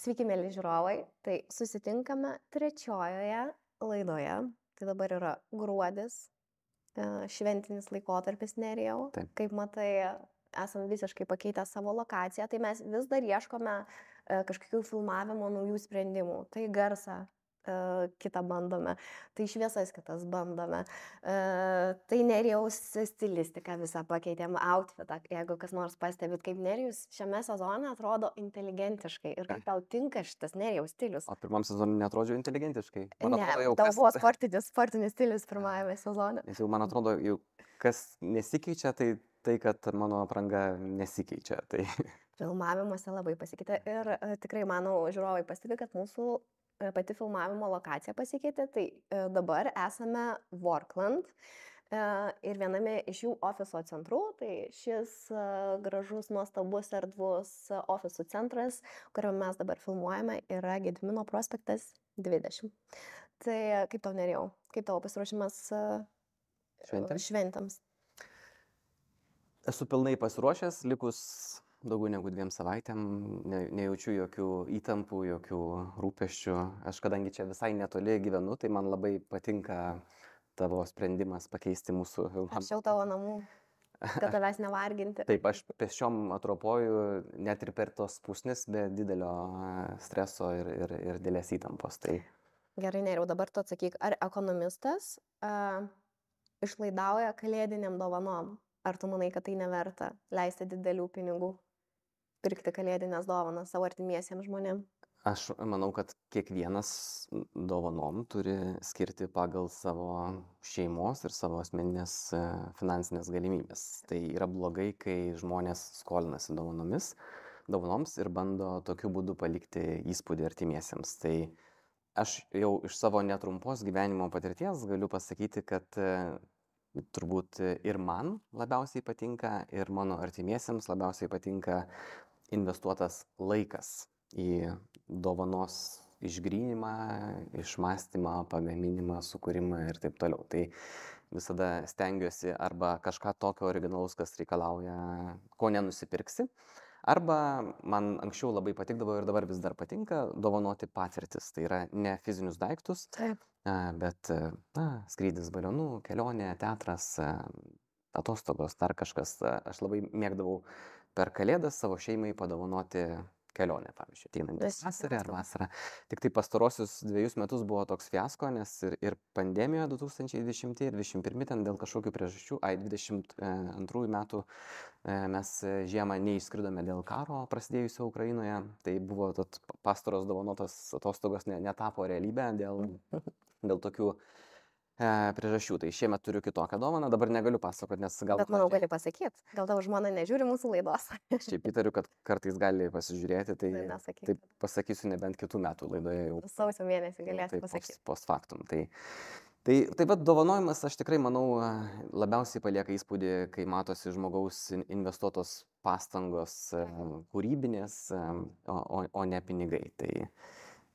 Sveiki, mėly žiūrovai. Tai susitinkame trečiojoje laidoje. Tai dabar yra gruodis, šventinis laikotarpis Nerijau. Taip. Kaip matai, esame visiškai pakeitę savo lokaciją, tai mes vis dar ieškome kažkokių filmavimo naujų sprendimų. Tai garsą kitą bandome, tai šviesas kitas bandome. Tai Nerijaus stilistiką visą pakeitėm, outfitą, jeigu kas nors pastebit, kaip Nerijus šiame sezone atrodo inteligentiškai ir kaip tau tinka šitas Nerijaus stilius. O pirmam sezonui netrodžiau inteligentiškai. Man Ne, atrodo, jau tau kas, buvo sportinis stilius pirmajame sezone. nes jau man atrodo, jau kas nesikeičia, tai kad mano apranga nesikeičia. Tai Filmavimuose labai pasikeitė ir tikrai, manau, žiūrovai pastebi, kad mūsų pati filmavimo lokacija pasikeitė. Tai dabar esame Workland ir viename iš jų ofiso centrų. Tai šis gražus, nuostabus, erdvus ofisų centras, kuriuo mes dabar filmuojame, yra Gedimino prospektas 20. Tai kaip tau Nerijau? Kaip tavo pasiruošimas šventėms? esu pilnai pasiruošęs, likus daugiau negu 2 savaitėm, nejaučiu jokių įtampų, jokių rūpesčių. Aš kadangi čia visai netoli gyvenu, tai man labai patinka tavo sprendimas pakeisti mūsų filmą. Arčiau tavo namų, kad tavęs nevarginti. Taip, aš pėsčiom atropoju net ir per tos pusnis, be didelio streso ir didelės įtampos. Tai Gerai, Nerijau, dabar tu atsakyk, ar ekonomistas išlaidauja kalėdiniam dovanom? Ar tu manai, kad tai neverta leisti didelių pinigų, pirkti kalėdinės dovanas savo artimiesiems žmonėms? aš manau, kad kiekvienas dovanom turi skirti pagal savo šeimos ir savo asmeninės finansinės galimybės. Tai yra blogai, kai žmonės skolinasi dovanoms ir bando tokiu būdu palikti įspūdį artimiesiems. Tai aš jau iš savo netrumpos gyvenimo patirties galiu pasakyti, kad turbūt ir man labiausiai patinka, ir mano artimiesiems labiausiai patinka investuotas laikas į dovanos išgryninimą, išmąstymą, pagaminimą, sukūrimą ir taip toliau. Tai visada stengiuosi arba kažką tokio originalaus, kas reikalauja, ko nenusipirksi, arba man anksčiau labai patikdavo ir dabar vis dar patinka dovanoti patirtis. Tai yra ne fizinius daiktus, Taip. bet skrydis balionu, kelionė, teatras, atostogos, dar kažkas. Aš labai mėgdavau per Kalėdas savo šeimai padovanoti kelionę, pavyzdžiui, ateinantį vasarą ar vasarą. Tik tai pastarosius 2 metus buvo toks fiasko, nes ir pandemija 2020 ir 2021 ten dėl kažkokių priežasčių, 22 metų mes žiemą neišskridome dėl karo prasidėjusio Ukrainoje. Tai buvo pastaros dovanotos atostogos netapo realybę dėl tokių priežasčių. Tai šiemet turiu kitokią dovaną, dabar negaliu pasakoti, nes gal... Bet manau, gali pasakyti. Gal tavo žmona nežiūri mūsų laidos? Šiaip įtariu, kad kartais gali pasižiūrėti, tai Nesakyk. taip pasakysiu nebent kitų metų laidoje jau. Sausio mėnesį galėsi Taip, pasakyti. post factum. Tai vat dovanojimas, aš tikrai manau, labiausiai palieka įspūdį, kai matosi žmogaus investuotos pastangos kūrybinės, o ne pinigai.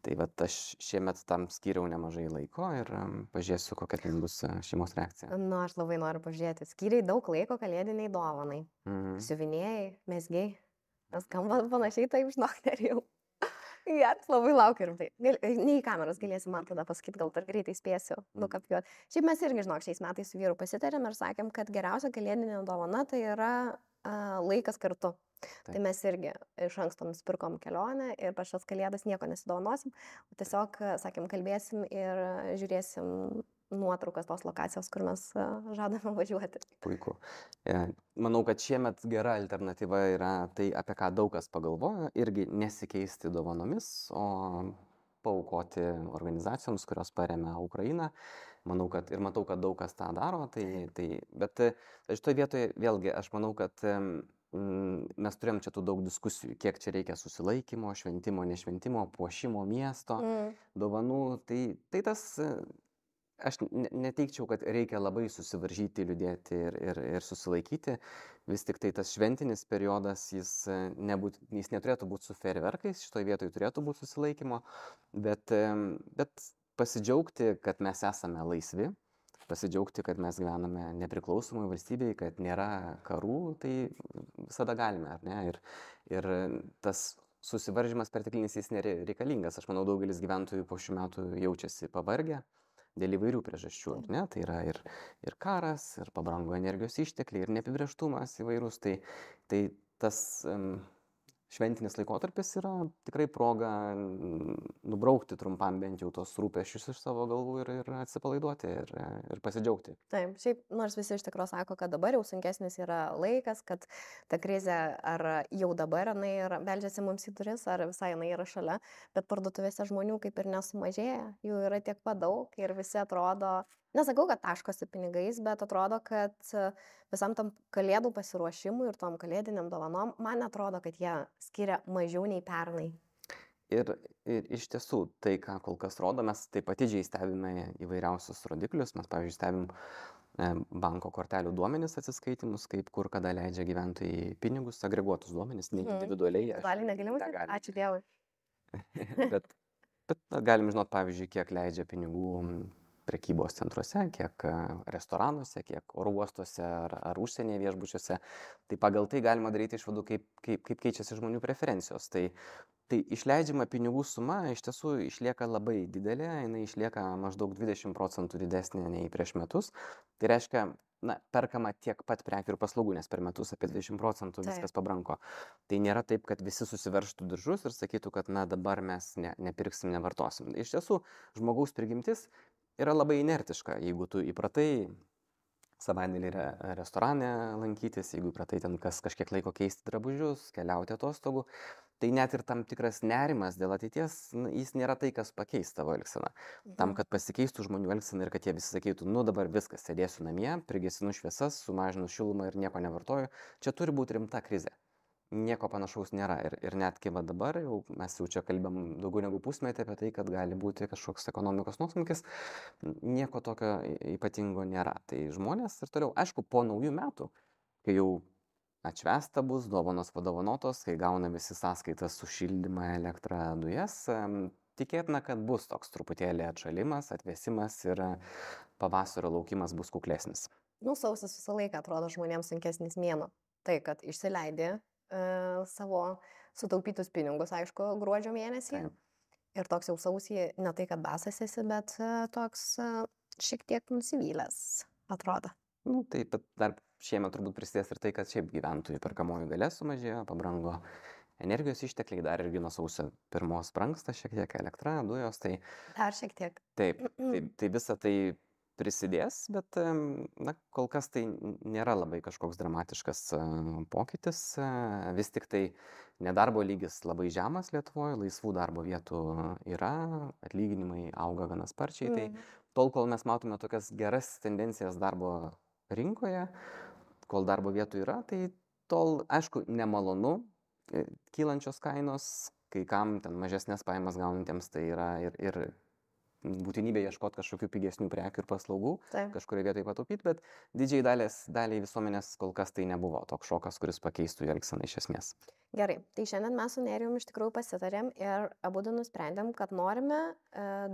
Tai vat aš šiemet tam skyriau nemažai laiko ir pažiūrėsiu, kokia ten bus šeimos reakcija. Nu, aš labai noriu pažiūrėti. Skyriai daug laiko kalėdiniai dovanai. Siuvinėjai, mesgiai. Skamba panašiai, taip, žinok, Nerijau. Geras, labai laukiu rimtai. Ne į kameras galėsi man tada pasakyti, gal dar greitai spėsiu nukapijuoti. Šiaip mes irgi, žinok, šiais metais su vyru pasitarėm ir sakėm, kad geriausia kalėdinė dovana tai yra laikas kartu. Tai mes irgi iš anksto nusipirkom kelionę ir per šias kalėdas nieko nesidovanosim, o tiesiog, sakėm, kalbėsim ir žiūrėsim nuotraukas tos lokacijos, kur mes žadame važiuoti. Puiku. Manau, kad šiemet gera alternatyva yra tai, apie ką daug kas pagalvojo, irgi nesikeisti dovanomis, o paaukoti organizacijoms, kurios paremia Ukrainą. Manau, kad ir matau, kad daug kas tą daro, bet šitoje vietoje vėlgi aš manau, kad mes turėjom čia tų daug diskusijų, kiek čia reikia susilaikymo, šventimo, nešventimo, puošimo miesto, dovanų. Tai tas, aš neteikčiau, kad reikia labai susivaržyti, liūdėti ir susilaikyti. Vis tik tai tas šventinis periodas, jis neturėtų būti su fejerverkais, šitoje vietoje turėtų būti susilaikymo, bet pasidžiaugti, kad mes esame laisvi, pasidžiaugti, kad mes gyvename nepriklausomai valstybėje, kad nėra karų, tai visada galime, ar ne? Ir tas susivaržymas perteklinis jis nereikalingas. Aš manau, daugelis gyventojų po šių metų jaučiasi pavargę dėl įvairių priežasčių. Ne? Tai yra ir karas, ir pabrango energijos ištekliai, ir neapibrėžtumas įvairūs. Tai tas šventinis laikotarpis yra tikrai proga nubraukti trumpam bent jau tos rūpesčius iš savo galvų ir atsipalaiduoti ir pasidžiaugti. Taip, šiaip nors visi iš tikrųjų sako, kad dabar jau sunkesnis yra laikas, kad ta krizė ar jau dabar jinai beldžiasi mums į duris, ar visai jinai yra šalia, bet parduotuvėse žmonių kaip ir nesumažėja, jų yra tiek pat daug ir visi atrodo, nesakau, kad taškosi pinigais, bet atrodo, kad visam tam kalėdų pasiruošimui ir tom kalėdiniam dovanom, man atrodo, kad jie skiria mažiau nei pernai. Ir iš tiesų, tai, ką kol kas rodo, mes taip atidžiai stebime įvairiausius rodiklius. Mes, pavyzdžiui, stebim banko kortelių duomenis atsiskaitimus, kaip kur kada leidžia gyventojai pinigus, agreguotus duomenis, ne individualiai. Gali negalima sakyti, ačiū Dievui. bet galim žinot, pavyzdžiui, kiek leidžia pinigų prekybos centruose, kiek restoranuose, kiek oro uostuose ar užsienyje viešbučiuose. Tai pagal tai galima daryti išvadų, kaip keičiasi žmonių preferencijos. Tai išleidžiama pinigų suma iš tiesų išlieka labai didelė, jinai išlieka maždaug 20% didesnė nei prieš metus. Tai reiškia, perkama tiek pat prekių ir paslaugų, nes per metus apie 20% viskas pabrango. Tai nėra taip, kad visi susiverštų diržus ir sakytų, kad dabar mes nepirksim, nevartosim. Iš tiesų, žmogaus prigimtis yra labai inertiška. Jeigu tu įpratai savaitgalį restorane lankytis, jeigu įpratai ten kažkiek laiko keisti drabužius, keliauti atostogų, tai net ir tam tikras nerimas dėl ateities, jis nėra tai, kas pakeis tavo elgseną. Tam, kad pasikeistų žmonių elgsena ir kad jie visi sakytų, dabar viskas, sėdėsiu namie, prigesinu šviesas, sumažinu šilumą ir nieko nevartoju, čia turi būti rimta krizė. Nieko panašaus nėra. Ir netgi dabar mes jau čia kalbam daugiau negu pusmetį apie tai, kad gali būti kažkoks ekonomikos nuosmukis, nieko tokio ypatingo nėra. Tai žmonės ir toliau, aišku, po naujų metų, kai jau atšvęsta bus, dovanos padovanotos, kai gauna visi sąskaitas už šildymą, elektrą, dujas, tikėtina, kad bus toks truputėlį atšalimas, atvėsimas ir pavasario laukimas bus kuklesnis. Sausis visą laiką atrodo žmonėms sunkesnis mėnuo. Tai, kad išsileidė savo sutaupytus pinigus, aišku, gruodžio mėnesį. Taip. Ir toks jau sausį, ne tai, kad basas esi, bet toks šiek tiek nusivylęs atrodo. Taip, bet dar šiemet turbūt prisidės ir tai, kad šiaip gyventojų perkamoji galia sumažėjo, pabrango energijos ištekliai, dar irgi nuo sausio 1 brangsta šiek tiek elektra, dujos, tai... Dar šiek tiek. Taip, tai visa tai prisidės, bet kol kas tai nėra labai kažkoks dramatiškas pokytis. Vis tik tai nedarbo lygis labai žemas Lietuvoje, laisvų darbo vietų yra, atlyginimai auga gana sparčiai. Tai tol, kol mes matome tokias geras tendencijas darbo rinkoje, kol darbo vietų yra, tai tol, aišku, nemalonu kylančios kainos, kai kam ten mažesnės pajamas gaunantiems tai yra ir būtinybė ieškoti kažkokių pigesnių prekių ir paslaugų, kažkurioje vietoje pataupyti, bet didžiai daliai visuomenės kol kas tai nebuvo toks šokas, kuris pakeistų jų elgseną iš esmės. Gerai, tai šiandien mes su Nerijum iš tikrųjų pasitarėm ir abudu nusprendėm, kad norime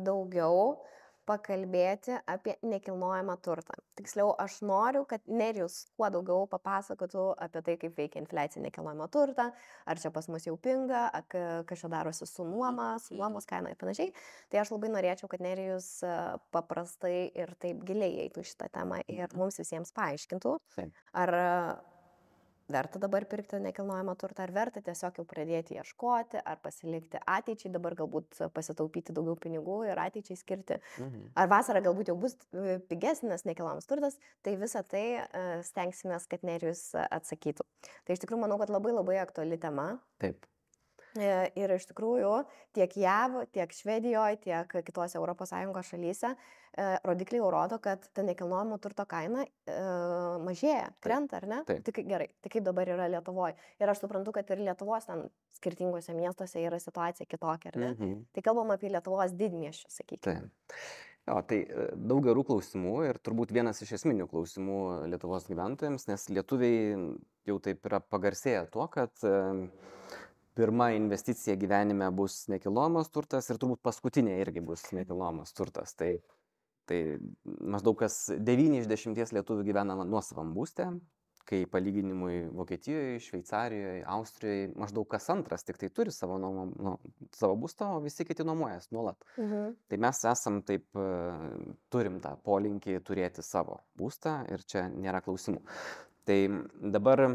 daugiau pakalbėti apie nekilnojamą turtą. Tiksliau, aš noriu, kad Nerijus kuo daugiau papasakotų apie tai, kaip veikia infliacija nekilnojamo turtą, ar čia pas mus jau pinga, kas čia darosi su nuomos kaina ir panašiai. Tai aš labai norėčiau, kad Nerijus paprastai ir taip giliai eitų šitą temą ir mums visiems paaiškintų, ar verta dabar pirkti nekilnojamą turtą, ar verta tiesiog jau pradėti ieškoti, ar pasilikti ateičiai, dabar galbūt pasitaupyti daugiau pinigų ir ateičiai skirti, ar vasarą galbūt jau bus pigesnis nekilnojamas turtas, tai visą tai stengsimės, kad Nerijus atsakytų. Tai iš tikrųjų manau, kad labai labai aktuali tema. Taip. Ir iš tikrųjų tiek JAV, tiek Švedijoje, tiek kitose ES šalyse rodikliai jau rodo, kad ta nekilnojamo turto kaina mažėja, krenta, ar ne? Taip. Tai gerai, tai kaip dabar yra Lietuvoje? Ir aš suprantu, kad ir Lietuvos ten skirtingose miestuose yra situacija kitokia, ar ne? Tai kalbam apie Lietuvos didmiesčius, sakykime. Taip. Jo, tai daug gerų klausimų ir turbūt vienas iš esminių klausimų Lietuvos gyventojams, nes lietuviai jau taip yra pagarsėję tuo, kad pirma investicija gyvenime bus nekilnojamas turtas ir turbūt paskutinė irgi bus nekilnojamas turtas. Tai maždaug kas 9 iš 10 lietuvių gyvena nuosavam būste, kai palyginimui Vokietijoje, Šveicarijoje, Austrijoje maždaug kas antras tik tai turi savo būstą, o visi kiti nuomojas nuolat. Tai mes esam taip, turim tą polinkį turėti savo būstą ir čia nėra klausimų. Tai dabar,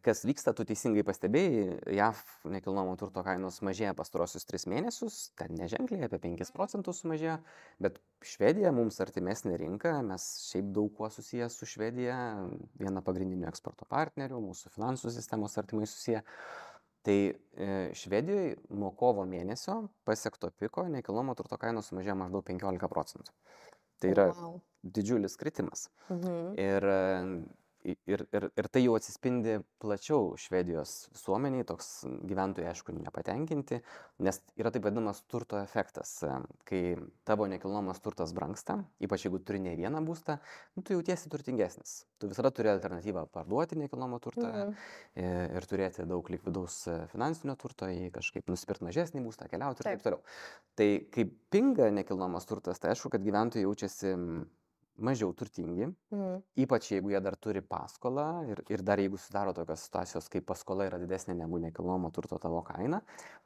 kas vyksta, tu teisingai pastebėjai, JAV nekilnojamo turto kainos mažėja pastarosius 3 mėnesius, ten neženkliai, apie 5% sumažėjo, bet Švedija mums artimesnė rinka, mes šiaip daug kuo susijęs su Švedija, viena pagrindinių eksporto partnerių, mūsų finansų sistemos artimai susiję. Tai Švedijoje nuo kovo mėnesio pasiekto piko nekilnojamo turto kainos sumažėjo maždaug 15%. Tai yra didžiulis kritimas. Ir tai jau atsispindi plačiau Švedijos visuomeniai, toks gyventojai aišku nepatenkinti, nes yra taip vadinamas turto efektas. Kai tavo nekilnojamas turtas brangsta, ypač jeigu turi ne vieną būstą, tu jautiesi turtingesnis. Tu visada turi alternatyvą parduoti nekilnojamą turtą ir turėti daug likvidaus finansinio turto, jį kažkaip nusipirkti mažesnį būstą, keliauti ir taip toliau. Tai kai pinga nekilnojamas turtas, tai aišku, kad gyventojai jaučiasi mažiau turtingi, ypač jeigu jie dar turi paskolą ir dar jeigu sudaro tokios situacijos, kai paskola yra didesnė negu nekilnojamo turto tavo kaina,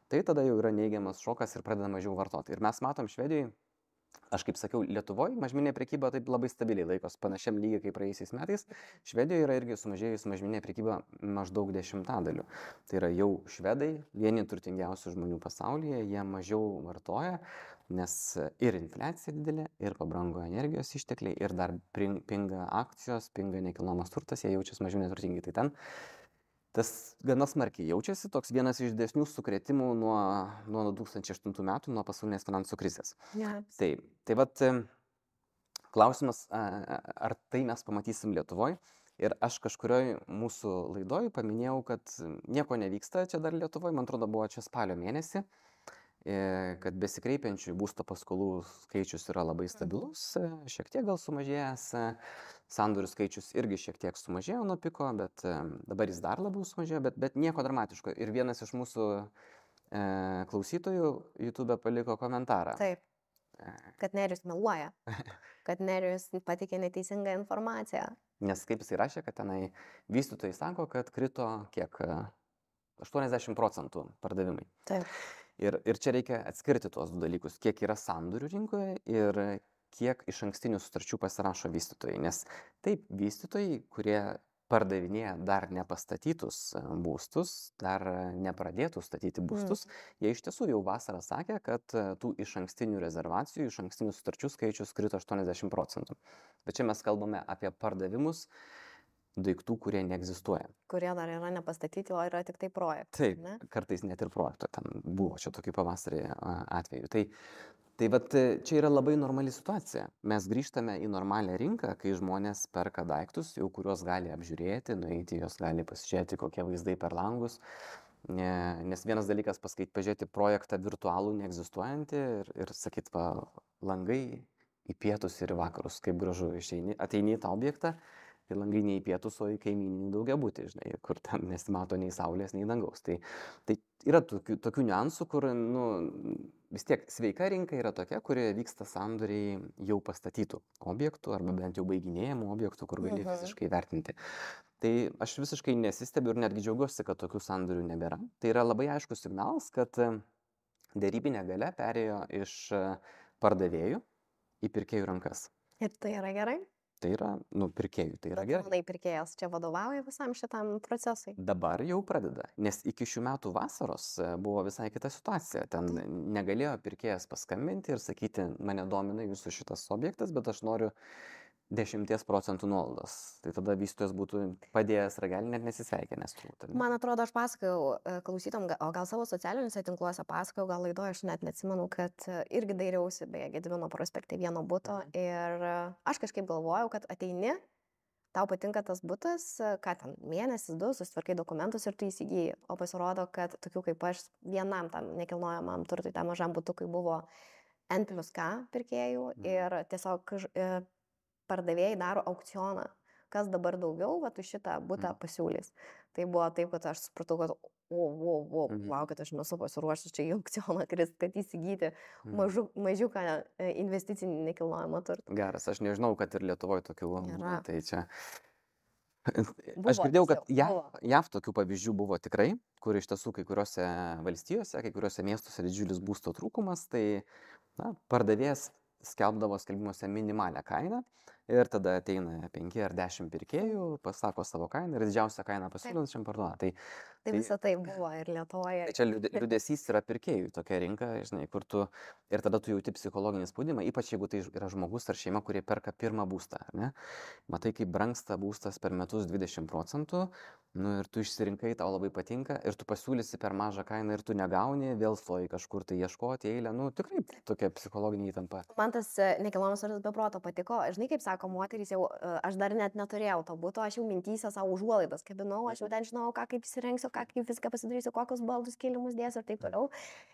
tai tada jau yra neigiamas šokas ir pradeda mažiau vartoti. Ir mes matom Švedijoje, aš kaip sakiau, Lietuvoje mažmeninė prekyba taip labai stabiliai laikos panašiam lygiai kaip praėjusiais metais. Švedijoje yra irgi sumažėjus mažmeninė prekyba maždaug 10%. Tai yra jau švedai, vieni turtingiausių žmonių pasaulyje, jie mažiau vartoja, nes ir infliacija didelė, ir pabrango energijos ištekliai, ir dar pinga akcijos, pinga nekilnojamas turtas, jie jaučiasi mažiau neturtingi. Tai ten tas gana smarkiai jaučiasi, toks vienas iš didesnių sukrėtimų nuo 2008 metų, nuo pasaulinės finansų krizės. Tai vat klausimas, ar tai mes pamatysim Lietuvoje. Ir aš kažkurioj mūsų laidoj paminėjau, kad nieko nevyksta čia dar Lietuvoje, man atrodo, buvo čia spalio mėnesį, kad besikreipiančių būsto paskolų skaičius yra labai stabilus, šiek tiek gal sumažėjęs, sandorių skaičius irgi šiek tiek sumažėjo nuo piko, bet dabar jis dar labiau sumažėjo, bet nieko dramatiško. Ir vienas iš mūsų klausytojų YouTube paliko komentarą. Taip, kad Nerijus meluoja, kad Nerijus pateikė neteisingą informaciją. Nes kaip jisai rašė, kad tenai vystytojai sako, kad krito kiek 80% pardavimai. Taip. Ir čia reikia atskirti tuos du dalykus, kiek yra sandorių rinkoje ir kiek iš ankstinių sutarčių pasirašo vystytojai. Nes taip, vystytojai, kurie pardavinėja dar nepastatytus būstus, dar nepradėtų statyti būstus, jie iš tiesų jau vasarą sakė, kad tų iš ankstinių rezervacijų, iš ankstinių sutarčių skaičius krito 80%. Bet čia mes kalbame apie pardavimus daiktų, kurie neegzistuoja. Kurie dar yra nepastatyti, o yra tik tai projektai. Taip, ne? Kartais net ir projekto ten buvo čia tokį pavasarį atveju. Tai vat čia yra labai normali situacija. Mes grįžtame į normalią rinką, kai žmonės perka daiktus, jau kuriuos gali apžiūrėti, nueiti, jos gali pasižiūrėti, kokie vaizdai per langus. Nes vienas dalykas pažiūrėti projektą virtualų, neegzistuojantį ir sakyt, langai į pietus ir į vakarus, kaip gražu ateini į tą objektą. Tai langai ne į pietus, o į kaimyninį daugiabutį, žinai, kur ten nesimato nei saulės, nei dangaus. Tai yra tokių niuansų, kur vis tiek sveika rinka yra tokia, kurioje vyksta sandoriai jau pastatytų objektų arba bent jau baiginėjamų objektų, kur gali fiziškai vertinti. Tai aš visiškai nesistebiu ir netgi džiaugiuosi, kad tokių sandorių nebėra. Tai yra labai aiškus signalas, kad derybinė galia perėjo iš pardavėjų į pirkėjų rankas. Ir tai yra gerai? Tai yra, pirkėjų, tai yra gerai. Manai, pirkėjas čia vadovauja visam šitam procesui? Dabar jau pradeda, nes iki šių metų vasaros buvo visai kita situacija. Ten negalėjo pirkėjas paskambinti ir sakyti, mane domina jūsų šitas objektas, bet aš noriu 10% nuolaidos. Tai tada vystytojas būtų padėjęs ragelį, net nesisveikinęs. Man atrodo, aš pasakojau klausytom, o gal savo socialiniuose tinkluose pasakojau, gal laidoje, aš net neatsimenu, kad irgi dairiausi, beje, Gedimino prospekte vieno buto ir aš kažkaip galvojau, kad ateini, tau patinka tas butas, ką ten, mėnesis, 2, susitvarkai dokumentus ir tu įsigyji. O pasirodo, kad tokių kaip aš vienam tam nekilnojamam turtui, tam mažam butukui buvo N+K pirkėjų ir tiesiog pardavėjai daro aukcioną, kas dabar daugiau, tu šitą butą pasiūlys. Tai buvo taip, kad aš supratau, kad kad aš nesu pasiruošęs čia į aukcioną krist, kad įsigyti mažiuką investicinį nekilnojamą turtą. Geras, aš nežinau, kad ir Lietuvoje tokių, tai čia Aš girdėjau, kad Buvo. JAV tokių pavyzdžių buvo tikrai, kur iš tiesų kai kuriuose valstijose, kai kuriuose miestuose didžiulis būsto trūkumas, tai pardavėjas skelbdavo skelbimuose minimalią kainą ir tada ateina 5 ar 10 pirkėjų, pasako savo kainą ir didžiausią kainą pasiūlančiam parduoda. Tai visą tai buvo ir Lietuvoje. Tai čia liūdesys yra pirkėjų tokia rinka, žinai, kur tu ir tada tu jauti psichologinį spaudimą, ypač jeigu tai yra žmogus ar šeima, kurie perka pirmą būstą, ne? Matai, kaip brangsta būstas per metus 20%, nu ir tu išsirinkai, tau labai patinka ir tu pasiūlysi per mažą kainą ir tu negauni, vėl stoji kažkur tai ieškoti eilę, nu tikrai tokia psichologinė įtampa. Man tas nekilnojamas turtas be proto patiko, žinai, kaip sako moterys, jau aš dar net neturėjau to buto, aš jau mintyse savo užuolaidas kabinau, aš jau ten žinau, kaip įsirengsiu, kaip viską pasidarysiu, kokius baldus, kilimus dėsiu ir taip toliau.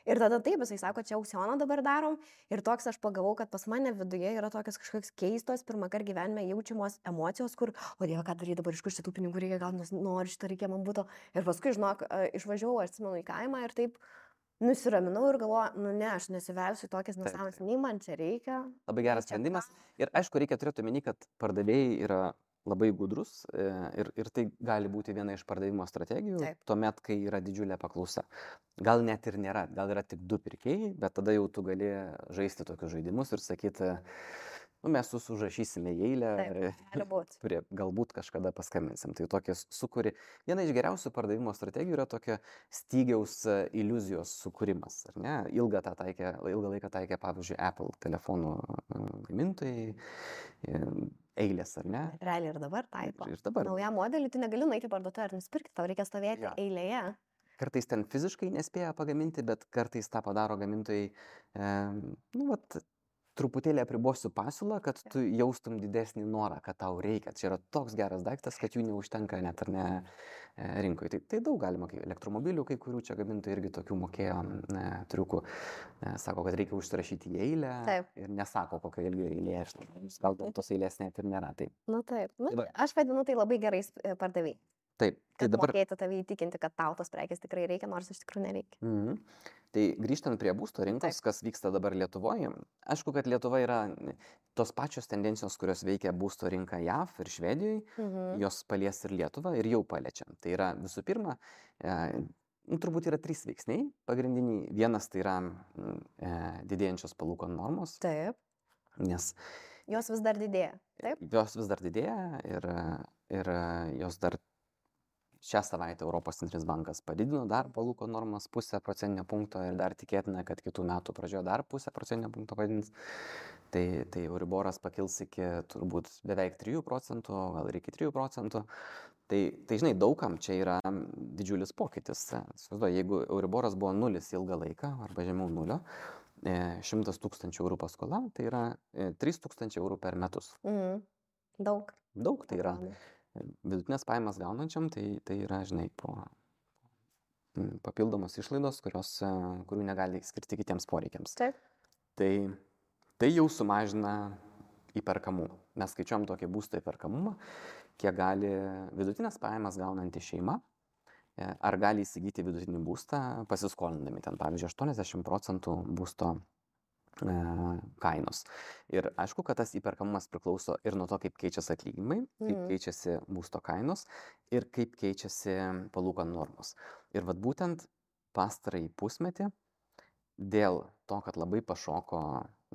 Ir tada taip, jisai sako, čia aukcioną dabar darom. Ir toks aš pagavau, kad pas mane viduje yra tokios kažkokios keistos, pirmą kartą gyvenime jaučiamos emocijos, kur, o Dieve, ką daryti dabar, iš kur šitų pinigų reikia, gal noriu šitą reikia man būtų. Ir paskui, žinok, išvažiavau, aš atsimenu, į kaimą ir taip nusiraminau ir galvoju, nu ne, aš nesivelsiu tokias nesąmonės, nei man čia reikia. Labai geras sprendimas. Ir aišku, reikia turėti omeny, kad pardavėjai yra labai gudrus ir tai gali būti viena iš pardavimo strategijų, tuomet, kai yra didžiulė paklausa. Gal net ir nėra, gal yra tik 2 pirkėjai, bet tada jau tu gali žaisti tokius žaidimus ir sakyti, nu, mes užrašysime į eilę, kurie galbūt kažkada paskambinsim. Tai tokie sukuri. Viena iš geriausių pardavimo strategijų yra tokia stygiaus iliuzijos sukūrimas. Ar ne? Ilgą laiką taikė, pavyzdžiui, Apple telefonų gamintojai. Eilės, ar ne? Realiai ir dabar taiko. Ir dabar. Naują modelį tu negali nueiti parduotuvę ir nusipirkti, tau reikia stovėti eilėje. Kartais ten fiziškai nespėja pagaminti, bet kartais tą padaro gamintojai, truputėlį apribosiu pasiūlą, kad tu jaustum didesnį norą, kad tau reikia. Čia yra toks geras daiktas, kad jų neužtenka net ar ne rinkoje. Tai daug galima, elektromobilių, kai kurių čia gamintojai irgi tokių mokėjo triukų. Sako, kad reikia užsirašyti į eilę. Taip. Ir nesako, kokio ilgio eilė. Gal tos eilės net ir nėra. Taip. Nu taip. Aš vadinu tai labai gerais pardavėjai. Taip. Tai dabar mokėti tave įtikinti, kad tau tos prekės tikrai reikia, nors iš tikrųjų nereikia. Tai grįžtant prie būsto rinkos, kas vyksta dabar Lietuvoje, aišku, kad Lietuva yra tos pačios tendencijos, kurios veikia būsto rinką JAV ir Švedijoje, jos palies ir Lietuvą ir jau paliečiam. Tai yra visų pirma, turbūt yra 3 veiksniai pagrindiniai. Vienas tai yra didėjančios palūkanų normos. Taip. Nes jos vis dar didėja. Taip. Jos vis dar didėja ir jos dar šią savaitę Europos centrinis bankas padidino dar palūkanų normas 0,5 procentinio punkto ir dar tikėtina, kad kitų metų pradžioje dar 0,5 procentinio punkto padidins. Tai Euriboras pakils iki turbūt beveik 3 procentų, gal ir iki 3 procentų. Tai žinai, daugam čia yra didžiulis pokytis. Jeigu Euriboras buvo 0 ilgą laiką arba žemiau 0, 100 000 eurų paskola, tai yra 3 000 eurų per metus. Daug. Daug tai yra. Vidutinės pajamas gaunančiam, tai yra, žinai, papildomos išlaidos, kurių negali skirti kitiems poreikiams. Taip. Tai jau sumažina įperkamumą. Mes skaičiuojam tokį būsto įperkamumą, kiek gali vidutinės pajamas gaunanti šeima, ar gali įsigyti vidutinį būstą pasiskolindami ten, pavyzdžiui, 80% būsto kainos. Ir aišku, kad tas įperkamumas priklauso ir nuo to, kaip keičiasi atlyginimai, kaip keičiasi būsto kainos ir kaip keičiasi palūkanų normos. Ir vat būtent pastarąjį pusmetį dėl to, kad labai pašoko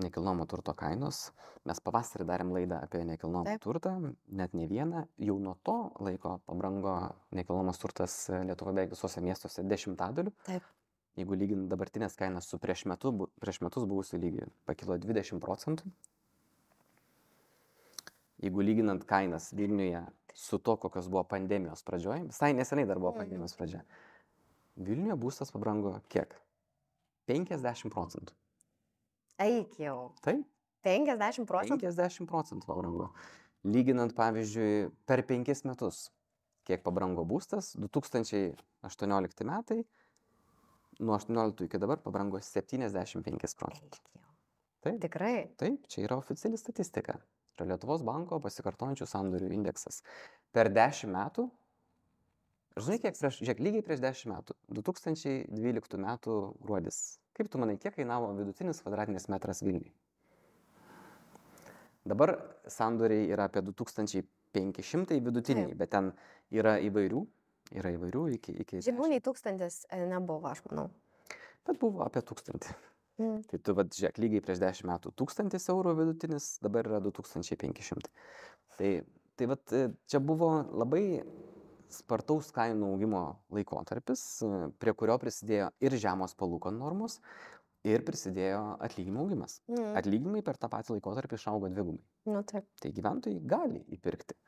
nekilnojamo turto kainos, mes pavasarį darėm laidą apie nekilnojamą turtą, net ne vieną, jau nuo to laiko pabrango nekilnojamas turtas Lietuvoje beveik visuose miestuose 10%. Taip. Jeigu lygint dabartinės kainas su prieš metus buvusiu lygiu, pakilo 20%. Jeigu lyginant kainas Vilniuje su to, kokios buvo pandemijos pradžioje, visai neseniai dar buvo pandemijos pradžia, Vilniuje būstas pabrango kiek? 50%. Eik jau. Taip. 50%? 50% pabrango. Lyginant, pavyzdžiui, per 5 metus, kiek pabrango būstas, 2018 metai, nuo 18 iki dabar pabrango 75%. Taip. Tikrai? Taip, čia yra oficiali statistika. Yra Lietuvos banko pasikartojančių sandorių indeksas. Per 10 metų, žinai, lygiai prieš 10 metų, 2012 metų gruodis. Kaip tu manai, kiek kainavo vidutinis kvadratinis metras Vilniuje? Dabar sandoriai yra apie 2500 vidutiniai, bet ten yra įvairių iki Žemiau nei 1000 nebuvo, aš manau. Bet buvo apie 1000. Tai tu, žiūrėk, lygiai prieš 10 metų 1000 eurų vidutinis, dabar yra 2500. Tai čia buvo labai spartaus kainų augimo laikotarpis, prie kurio prisidėjo ir žemos palūkanų normos, ir prisidėjo atlyginimų augimas. Atlyginimai per tą patį laikotarpį išaugo dvigubai. Nu, taip. Tai gyventojai gali įpirkti.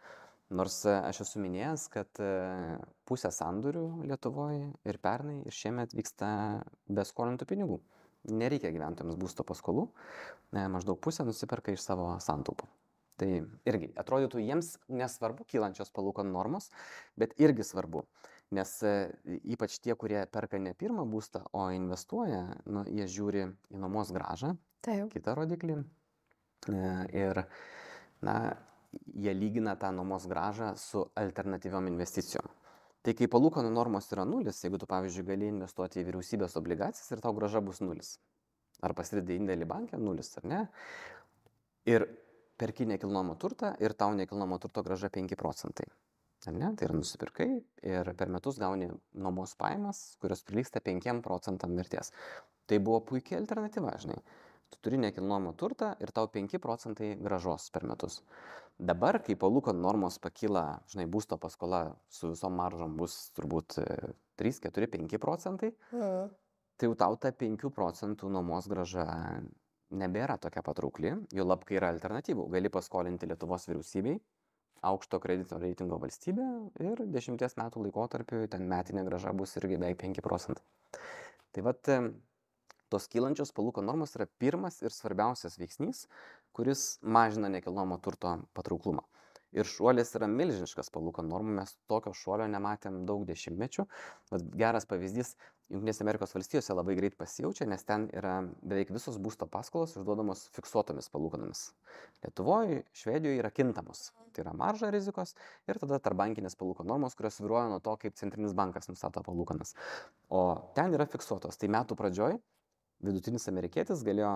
Nors aš esu minėjęs, kad pusė sandorių Lietuvoje ir pernai ir šiemet vyksta be skolintų pinigų. Nereikia gyventojams būsto paskolų, maždaug pusę nusiperka iš savo santaupų. Tai irgi atrodytų jiems nesvarbu kylančios palūkanų normos, bet irgi svarbu, nes ypač tie, kurie perka ne pirmą būstą, o investuoja, jie žiūri į nuomos grąžą, kitą rodiklį ir jie lygina tą nuomos grąžą su alternatyviom investicijom. Tai kai palūkanų normos yra 0, jeigu tu, pavyzdžiui, gali investuoti į vyriausybės obligacijas ir tau grąža bus 0. Ar pasidedi indėlį banke 0, ar ne? Ir perki nekilnojamą turtą ir tau nekilnojamo turto grąža 5%. Ar ne? Tai yra nusipirkai ir per metus gauni nuomos pajamas, kurios prilygsta 5% vertės. Tai buvo puikia alternatyva, žinai. Tu turi nekilnojamą turtą ir tau 5% grąžos per metus. Dabar, kai palūkanų normos pakyla, žinai, būsto paskola su visom maržom bus turbūt 3, 4, 5%, tai jau tau ta 5% nuomos grąža nebėra tokia patraukli, jau lab, kai yra alternatyvų. Gali paskolinti Lietuvos vyriausybei, aukšto kredito reitingo valstybė ir 10 metų laikotarpiu ten metinė grąža bus irgi beveik 5%. Tai tos kylančios palūkanų normos yra pirmas ir svarbiausias veiksnys, kuris mažina nekilnojamo turto patrauklumą. Ir šuolis yra milžiniškas palūkanų normų, mes tokio šuolio nematėm daug dešimtmečių. Geras pavyzdys, Jungtinėse Amerikos valstijose labai greit pasijaučia, nes ten yra beveik visos būsto paskolos išduodamos fiksuotomis palūkanomis. Lietuvoje, Švedijoje yra kintamos. Tai yra marža rizikos ir tada tarpbankinės palūkanų normos, kurios svyruoja nuo to, kaip centrinis bankas nustato palūkanas. O ten yra fiksuotos. Tai metų pradžioj vidutinis amerikietis galėjo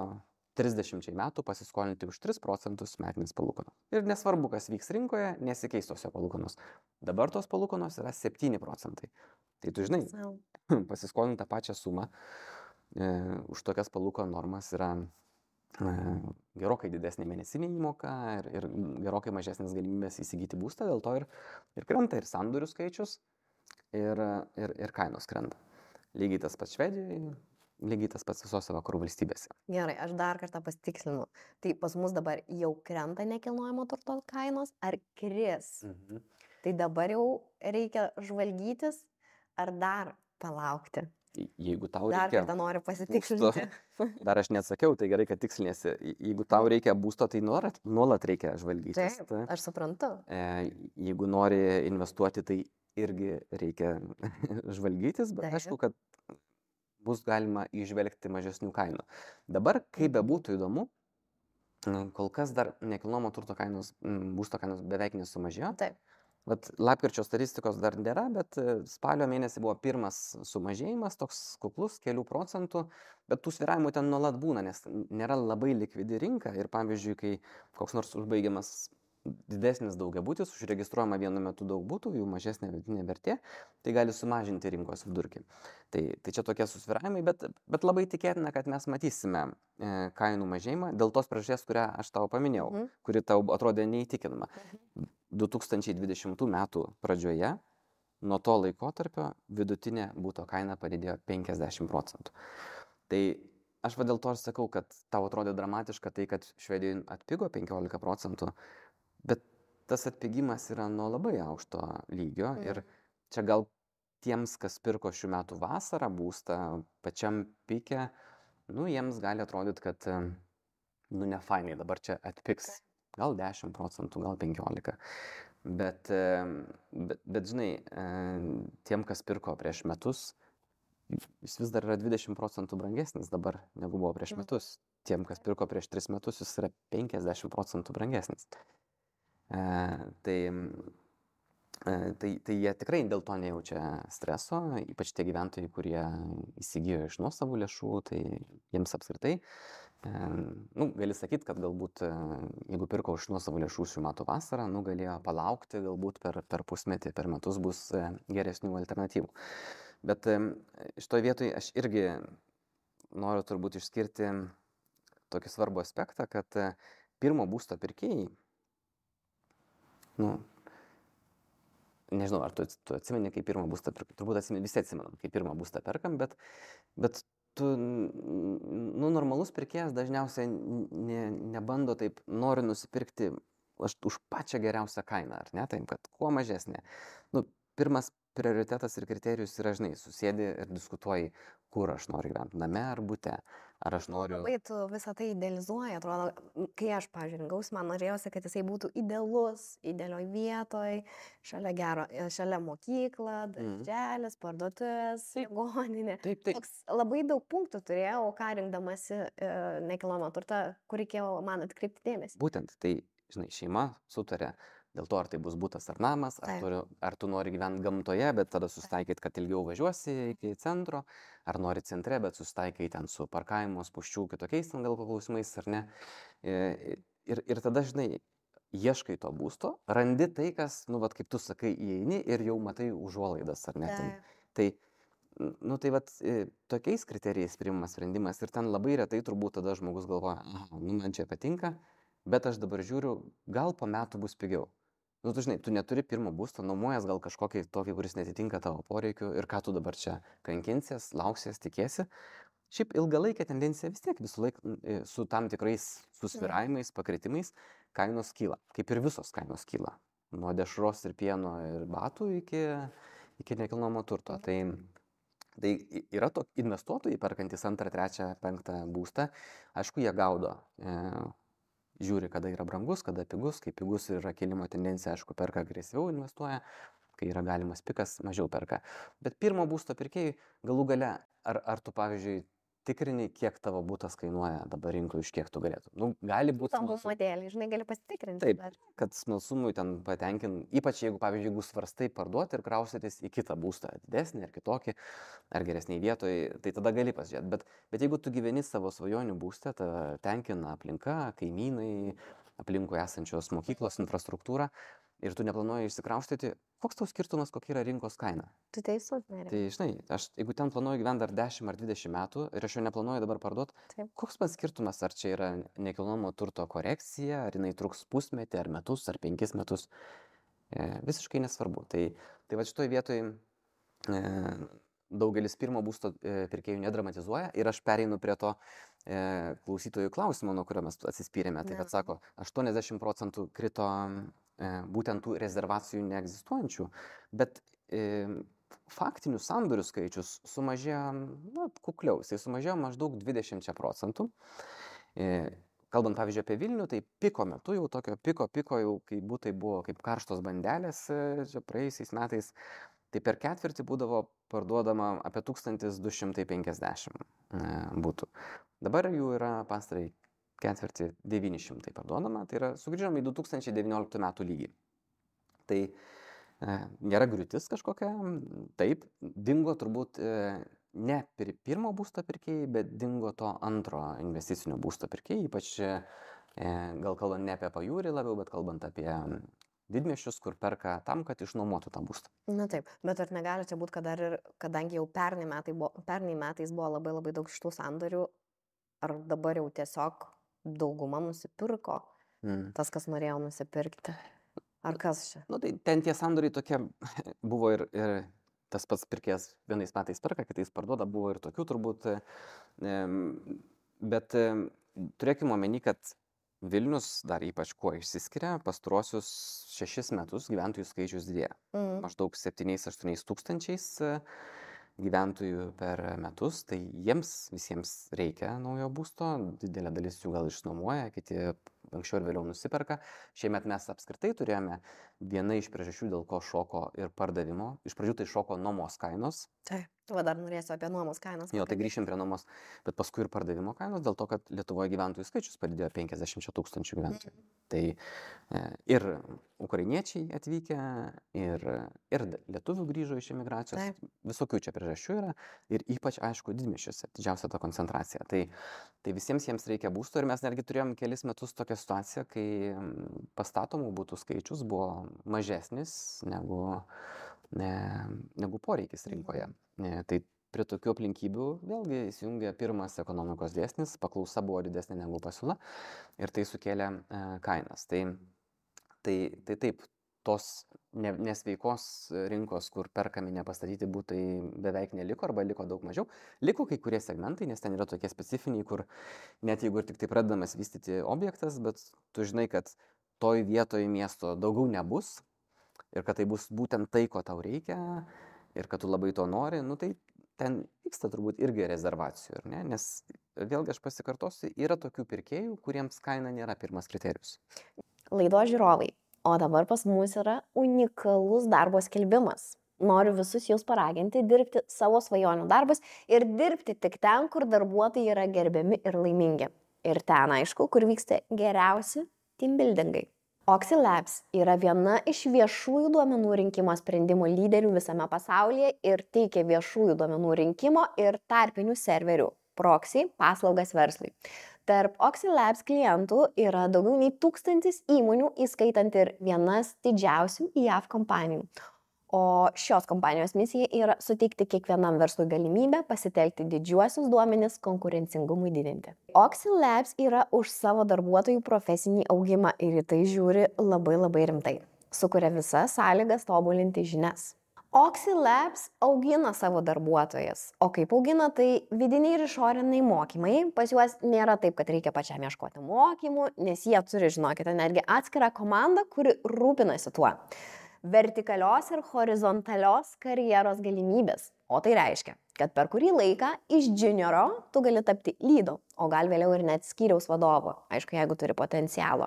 30 metų pasiskolinti už 3% metinės palūkanos. Ir nesvarbu, kas vyks rinkoje, nesikeis tos palūkanos. Dabar tos palūkanos yra 7%. Tai tu žinai, pasiskolinti tą pačią sumą už tokias palūkanų normas yra gerokai didesnė mėnesinė įmoka ir gerokai mažesnės galimybės įsigyti būstą, dėl to ir krenta ir sandorių skaičius ir kainos krenta. Lygiai tas pats Švedijoje. Lygiai tas pats visose vakarų valstybėse. Gerai, aš dar kartą pasitikslinu. Tai pas mus dabar jau krenta nekilnojamo turto kainos, ar kris? Tai dabar jau reikia žvalgytis, ar dar palaukti? Jeigu tau dar reikia... Dar kartą noriu pasitikslinti. Dar aš neatsakiau, tai gerai, kad tikslinėsi. Jeigu tau reikia būsto, tai nuolat reikia žvalgytis. Taip, aš suprantu. Jeigu nori investuoti, tai irgi reikia žvalgytis, bet aišku, kad bus galima įžvelgti mažesnių kainų. Dabar, kaip bebūtų įdomu, kol kas dar nekilnojamo turto kainos, būsto kainos beveik nesumažėjo. Taip. Lapkričio statistikos dar nėra, bet spalio mėnesį buvo pirmas sumažėjimas, toks kuklus, kelių procentų, bet tų svyravimų ten nuolat būna, nes nėra labai likvidi rinka ir pavyzdžiui, kai koks nors užbaigiamas didesnis daugiabutis, užregistruojama vienu metu daug būtų, jų mažesnė vidutinė vertė, tai gali sumažinti rinkos vidurkį. Tai čia tokie susvyravimai, bet labai tikėtina, kad mes matysime kainų mažėjimą dėl tos priežasties, kurią aš tau paminėjau, kuri tau atrodė neįtikinama. 2020 metų pradžioje, nuo to laikotarpio vidutinė būto kaina padidėjo 50%. Tai aš dėl to ir sakau, kad tau atrodė dramatiška tai, kad Švedijoje atpigo 15%, bet tas atpigimas yra nuo labai aukšto lygio ir čia gal tiems, kas pirko šių metų vasarą būstą pačiam pike, jiems gali atrodyti, kad ne fainai, dabar čia atpigs gal 10%, gal 15%. Bet žinai, tiem, kas pirko prieš metus, jis vis dar yra 20% brangesnis dabar, negu buvo prieš metus. Tiem, kas pirko prieš 3 metus, jis yra 50% brangesnis. Tai jie tikrai dėl to nejaučia streso, ypač tie gyventojai, kurie įsigijo iš nuosavų lėšų, tai jiems apskritai Gali sakyti, kad galbūt, jeigu pirko už nuosavų lėšų šių metų vasarą, galėjo palaukti, galbūt per pusmetį, per metus bus geresnių alternatyvų. Bet šitoje vietoje aš irgi noriu turbūt išskirti tokį svarbų aspektą, kad pirmo būsto pirkėjai, nežinau, ar tu atsimeni, kai pirmą būstą perkam, turbūt visi atsimenam, kai pirmą būstą perkam, bet normalus pirkėjas dažniausiai nebando taip, nori nusipirkti už pačią geriausią kainą, ar ne, taip, kad kuo mažesnė. Pirmas prioritetas ir kriterijus yra, žinai, susėdi ir diskutuoji, kur aš noriu gyventi, name ar bute, ar aš noriu... Labai tu visą tai idealizuoji, atrodo, kai aš, pavyzdžiui, rinkausi, man norėjosi, kad jisai būtų idealus, idealioj vietoj, šalia mokykla, darželis, parduotuvės, ligoninė. Taip. Labai daug punktų turėjau, ką rinkdamasi nekilnojamą turtą, kur reikėjo man atkreipti dėmesį. Būtent, tai, žinai, šeima sutarė dėl to, ar tai bus butas ar namas, ar tu nori gyventi gamtoje, bet tada susitaikyti, kad ilgiau važiuosi iki centro, ar nori centre, bet susitaikai ten su parkavimo, spūsčių, kitokiais ten gal klausimais, ar ne. Ir tada, žinai, ieškai to būsto, randi tai, kas, kaip tu sakai, įeini ir jau matai užuolaidas, ar ne. Tai tokiais kriterijais priimamas sprendimas ir ten labai retai turbūt tada žmogus galvoja, man čia patinka, bet aš dabar žiūriu, gal po metų bus pigiau. Tu žinai, tu neturi pirmo būsto, nuomojas gal kažkokį tokį, kuris netitinka tavo poreikių ir ką tu dabar čia kankinsies, lauksies, tikėsi. Šiaip ilgalaikė tendencija vis tiek visą laiką su tam tikrais susvyravimais, pakritimais, kainos kyla, kaip ir visos kainos kyla. Nuo dešros ir pieno ir batų iki nekilnojamo turto. Tai yra investuotojai perkantys 2, 3, 5 būstą, aišku, jie gaudo. Žiūri, kada yra brangus, kada pigus, kai pigus yra kilimo tendencija, aišku, perka agresyviau investuoja, kai yra galimas pikas, mažiau perka. Bet pirmo būsto pirkėjai galų gale, ar tu, pavyzdžiui, tikrini, kiek tavo būtas kainuoja dabar rinkoje, iš kiek tu galėtum. Gali būti... Tam modelį, žinai, gali pasitikrinti. Taip, kad smalsumui ten patenkin, ypač jeigu, pavyzdžiui, jeigu svarstai parduoti ir kraustytis į kitą būstą, didesnį ar kitokį, ar geresnį vietoj, tai tada gali pasižiūrėti. Bet jeigu tu gyveni savo svajonių būste, tenkina aplinka, kaimynai, aplinkui esančios mokyklos, infrastruktūra, ir tu neplanuoji išsikraustyti, koks tau skirtumas, kokia yra rinkos kaina? Tu teisus, Nerija. Tai, žinai, jeigu ten planuoju gyventi dar 10 ar 20 metų ir aš jau neplanuoju dabar parduoti, koks man skirtumas, ar čia yra nekilnojamo turto korekcija, ar jinai truks pusmetį, ar metus, ar 5 metus, visiškai nesvarbu. Tai va šitoj vietoj daugelis pirmo būsto pirkėjų nedramatizuoja ir aš pereinu prie to klausytojų klausimo, nuo kurio mes atsispyrėme. Tai bet sako, 80% krito būtent tų rezervacijų neegzistuojančių, bet faktinių sandorių skaičius sumažėjo, kukliau, jisai sumažėjo maždaug 20%. Kalbant, pavyzdžiui, apie Vilnių, tai piko metu, jau tokio piko jau, kai būtai buvo kaip karštos bandelės čia praėjusiais metais, tai per ketvirtį būdavo parduodama apie 1250 būtų. Dabar jų yra pastarai ketvirtį 900 parduodama, tai yra sugrįžom į 2019 metų lygį. Tai nėra griūtis kažkokia, taip, dingo turbūt ne pirmo būsto pirkėjai, bet dingo to antro investicinio būsto pirkėjai, ypač gal kalbant ne apie pajūrį labiau, bet kalbant apie didmiesčius, kur perka tam, kad išnuomotų tą būstą. Na taip, bet ar negali čia būti, kad kadangi jau pernai metais buvo labai labai daug šitų sandorių, ar dabar jau tiesiog dauguma nusipirko, tas, kas norėjo nusipirkti. Ar kas čia? Tai ten tie sandoriai tokie buvo ir tas pats pirkėjas vienais metais perka, kitais parduoda, buvo ir tokių turbūt. Bet turėkime omeny, kad Vilnius dar ypač kuo išsiskiria, pastaruosius 6 metus gyventojų skaičius didėja. Maždaug 7-8 tūkstančiais gyventojų per metus, tai jiems visiems reikia naujo būsto, didelė dalis jų gal išnuomoja, kiti anksčiau ir vėliau nusiperka. Šiemet mes apskritai turėjome viena iš priežasčių, dėl ko šoko ir pardavimo. Iš pradžių tai šoko nuomos kainos. Va dar norėsiu apie nuomos kainas. Jo, tai grįšim prie nuomos, bet paskui ir pardavimo kainos, dėl to, kad Lietuvoje gyventojų skaičius padidėjo 50 000 gyventojų. Tai ir ukrainiečiai atvykę, ir lietuvių grįžo iš emigracijos, visokių čia priežasčių yra, ir ypač, aišku, didmiesčiuose, didžiausia ta koncentracija. Tai visiems jiems reikia būsto, ir mes netgi turėjom kelis metus tokią situaciją, kai pastatomų būtų skaičius buvo mažesnis negu poreikis rinkoje. Tai prie tokių aplinkybių vėlgi įsijungia pirmas ekonomikos dėsnis, paklausa buvo didesnė negu pasiūla ir tai sukėlė kainas. Tai taip, tos nesveikos rinkos, kur perkami nepastatyti būtai beveik neliko arba liko daug mažiau. Liko kai kurie segmentai, nes ten yra tokie specifiniai, kur net jeigu ir tik tai pradedamas vystyti objektas, bet tu žinai, kad toj vietoj miesto daugiau nebus ir kad tai bus būtent tai, ko tau reikia ir kad tu labai to nori, tai ten vyksta turbūt irgi rezervacijų, ne? Nes vėlgi aš pasikartosiu, yra tokių pirkėjų, kuriems kaina nėra pirmas kriterijus. Laidos žiūrovai, o dabar pas mus yra unikalus darbo skelbimas. Noriu visus jūs paraginti dirbti savo svajonių darbus ir dirbti tik ten, kur darbuotojai yra gerbiami ir laimingi. Ir ten, aišku, kur vyksta geriausi teambuildingai. Oxy Labs yra viena iš viešųjų duomenų rinkimo sprendimų lyderių visame pasaulyje ir teikia viešųjų duomenų rinkimo ir tarpinių serverių proxy paslaugas verslui. Tarp Oxy Labs klientų yra daugiau nei 1000 įmonių, įskaitant ir vienas didžiausių JAV kompanijų. O šios kompanijos misija yra suteikti kiekvienam verslui galimybę pasitelkti didžiuosius duomenis konkurencingumui didinti. Oxy Labs yra už savo darbuotojų profesinį augimą ir į tai žiūri labai rimtai. Sukuria visas sąlygas tobulinti žinias. Oxy Labs augina savo darbuotojas. O kaip augina, tai vidiniai ir išoriniai mokymai. Pas juos nėra taip, kad reikia pačiam ieškoti mokymų, nes jie turi, žinokite, netgi atskirą komandą, kuri rūpinasi tuo. Vertikalios ir horizontalios karjeros galimybės. O tai reiškia, kad per kurį laiką iš junioro tu gali tapti lydu, o gal vėliau ir net skyriaus vadovu, aišku, jeigu turi potencialo.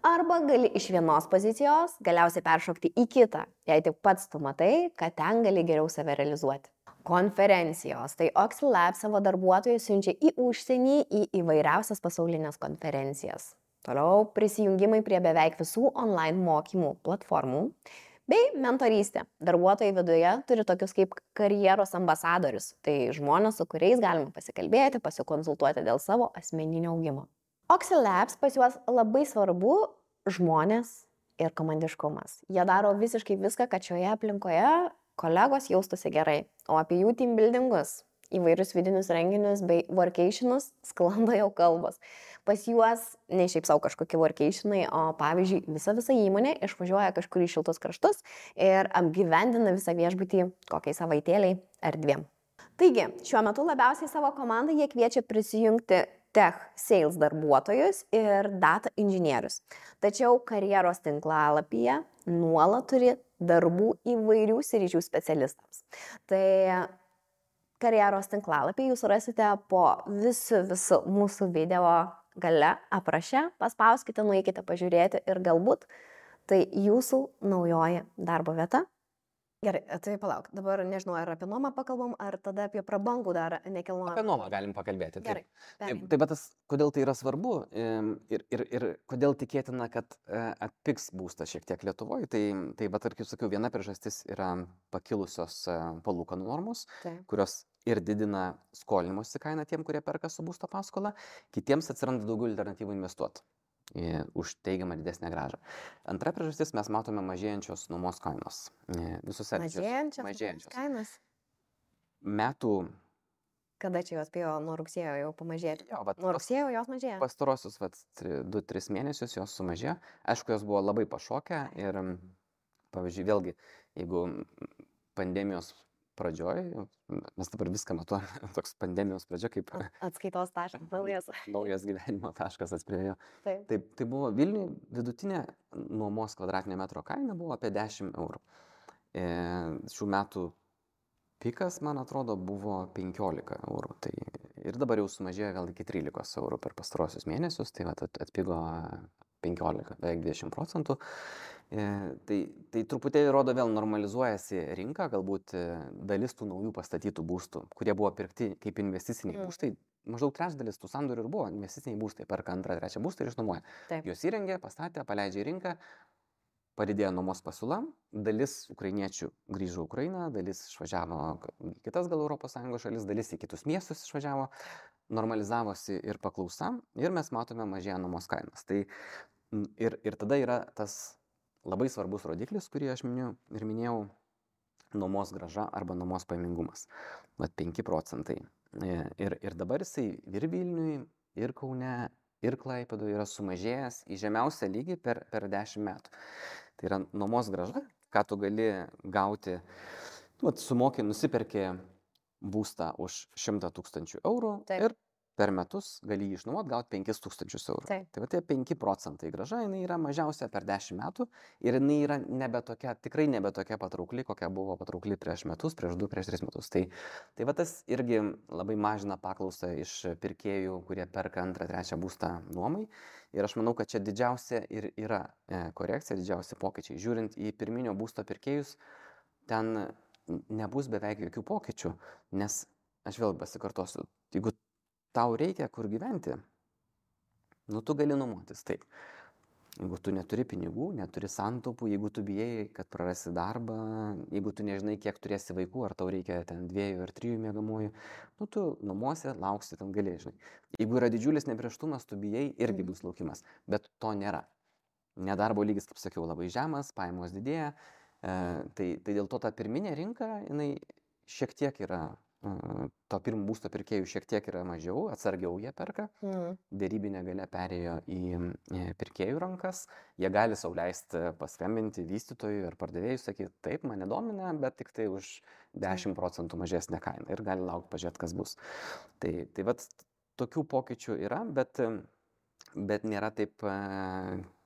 Arba gali iš vienos pozicijos galiausiai peršokti į kitą, jei tik pats tu matai, kad ten gali geriau save realizuoti. Konferencijos. Tai Oxy Labs savo darbuotojus siunčia į užsienį, į įvairiausias pasaulinės konferencijas. Toliau prisijungimai prie beveik visų online mokymų platformų. Bei mentorystė. Darbuotojai viduje turi tokius kaip karjeros ambasadorius. Tai žmonės, su kuriais galima pasikalbėti, pasikonsultuoti dėl savo asmeninio augimo. Oxy Labs pas juos labai svarbu žmonės ir komandiškumas. Jie daro visiškai viską, kad šioje aplinkoje kolegos jaustųsi gerai. O apie jų teambuildingus, įvairius vidinius renginius bei workationus sklando jau kalbos. Pas juos ne šiaip savo kažkokie workationai, o pavyzdžiui visa įmonė išvažiuoja kažkur į šiltus kraštus ir apgyvendina visą viešbutį kokiai savaitėliai ar 2. Taigi, šiuo metu labiausiai savo komandą jie kviečia prisijungti tech sales darbuotojus ir data inžinierius. Tačiau karjeros tinklalapyje nuolat turi darbų įvairių sričių specialistams. Tai karjeros tinklalapį jūs rasite po visų mūsų video gale apraše, paspauskite, nueikite pažiūrėti ir galbūt tai jūsų naujoji darbo vieta. Gerai, tai palauk, dabar nežinau, ar apie nuomą pakalbam, ar tada apie prabangų dar nekilnojamą. Apie nuomą galim pakalbėti. Gerai. Tai bet kodėl tai yra svarbu ir kodėl tikėtina, kad atpigs būstas šiek tiek Lietuvoje, tai bet, kaip sakiau, viena priežastis yra pakilusios palūkanų normos, kurios ir didina skolinimosi kainą tiem, kurie perka su būsto paskola, kitiems atsiranda daugiau alternatyvų investuoti už teigiamą didesnę grąžą. Antra priežastis, mes matome mažėjančios nuomos kainos. Mažėjančios kainos? Metų. Kada čia jos spėjo nuo rugsėjo jau pamažėti? Nuo rugsėjo jos mažėjo? Pastarosius 2-3 mėnesius jos sumažėjo. Aišku, jos buvo labai pašokę ir, pavyzdžiui, vėlgi, jeigu pandemijos pradžioj, mes dabar viską matuojame, toks pandemijos pradžia kaip atskaitos taškas, naujas gyvenimo taškas atspėjo. Tai buvo Vilniuje vidutinė nuomos kvadratinio metro kaina buvo apie 10 eurų. Šių metų pikas, man atrodo, buvo 15 eurų. Tai ir dabar jau sumažėjo gal iki 13 eurų per pastarosius mėnesius, tai vat atpigo 15, beveik 20%. Tai truputėlį rodo vėl normalizuojasi rinka, galbūt dalis tų naujų pastatytų būstų, kurie buvo pirkti kaip investiciniai būstai, maždaug trečdalis tų sandorių ir buvo investiciniai būstai, perka antrą, trečią būstą ir išnuomoja. Juos įrengė, pastatė, paleidžia į rinką, padidėjo nuomos pasiūla, dalis ukrainiečių grįžo į Ukrainą, dalis išvažiavo į kitas gal ES šalis, dalis į kitus miestus išvažiavo, normalizavosi ir paklausa ir mes matome mažėja nuomos kainos. Tai ir tada yra tas labai svarbus rodiklis, kurį aš minėjau, nuomos grąža arba nuomos pajamingumas. Vat 5%. Ir dabar jisai ir Vilniui, ir Kaune, ir Klaipėdoje yra sumažėjęs į žemiausią lygį per 10 metų. Tai yra nuomos grąža, ką tu gali gauti, sumoki, nusiperki būstą už 100 000 eurų ir per metus gali jį išnuomoti, gauti 5 000 eurų. Tai va tie 5% grąža, jinai yra mažiausia per 10 metų ir jinai yra tikrai nebe tokia patraukli, kokia buvo patraukli prieš metus, prieš 2, prieš 3 metus. Tai va tas irgi labai mažina paklausą iš pirkėjų, kurie perka antrą, trečią būstą nuomai. Ir aš manau, kad čia didžiausia ir yra korekcija, didžiausi pokyčiai. Žiūrint į pirminio būsto pirkėjus, ten nebus beveik jokių pokyčių, nes aš vėl pasikartosiu, jeigu tau reikia kur gyventi, tu gali nuomotis, taip. Jeigu tu neturi pinigų, neturi santaupų, jeigu tu bijai, kad prarasi darbą, jeigu tu nežinai, kiek turėsi vaikų, ar tau reikia ten 2 ar 3 miegamųjų, tu nuomosi, lauksi, ten gali, žinai. Jeigu yra didžiulis neprieštumas, tu bijai, irgi bus laukimas, bet to nėra. Nedarbo lygis, kaip sakiau, labai žemas, pajamos didėja, tai dėl to ta pirminė rinka, jinai šiek tiek yra, to pirmo būsto pirkėjų šiek tiek yra mažiau, atsargiau jie perka, dėrybinė galia perėjo į pirkėjų rankas, jie gali sau leisti paskambinti vystytojui ar pardavėjui, sakyti, taip, mane domina, bet tik tai už 10% mažesnę kainą ir gali laukti, pažiūrėti, kas bus. Tai vat tokių pokyčių yra, bet nėra taip,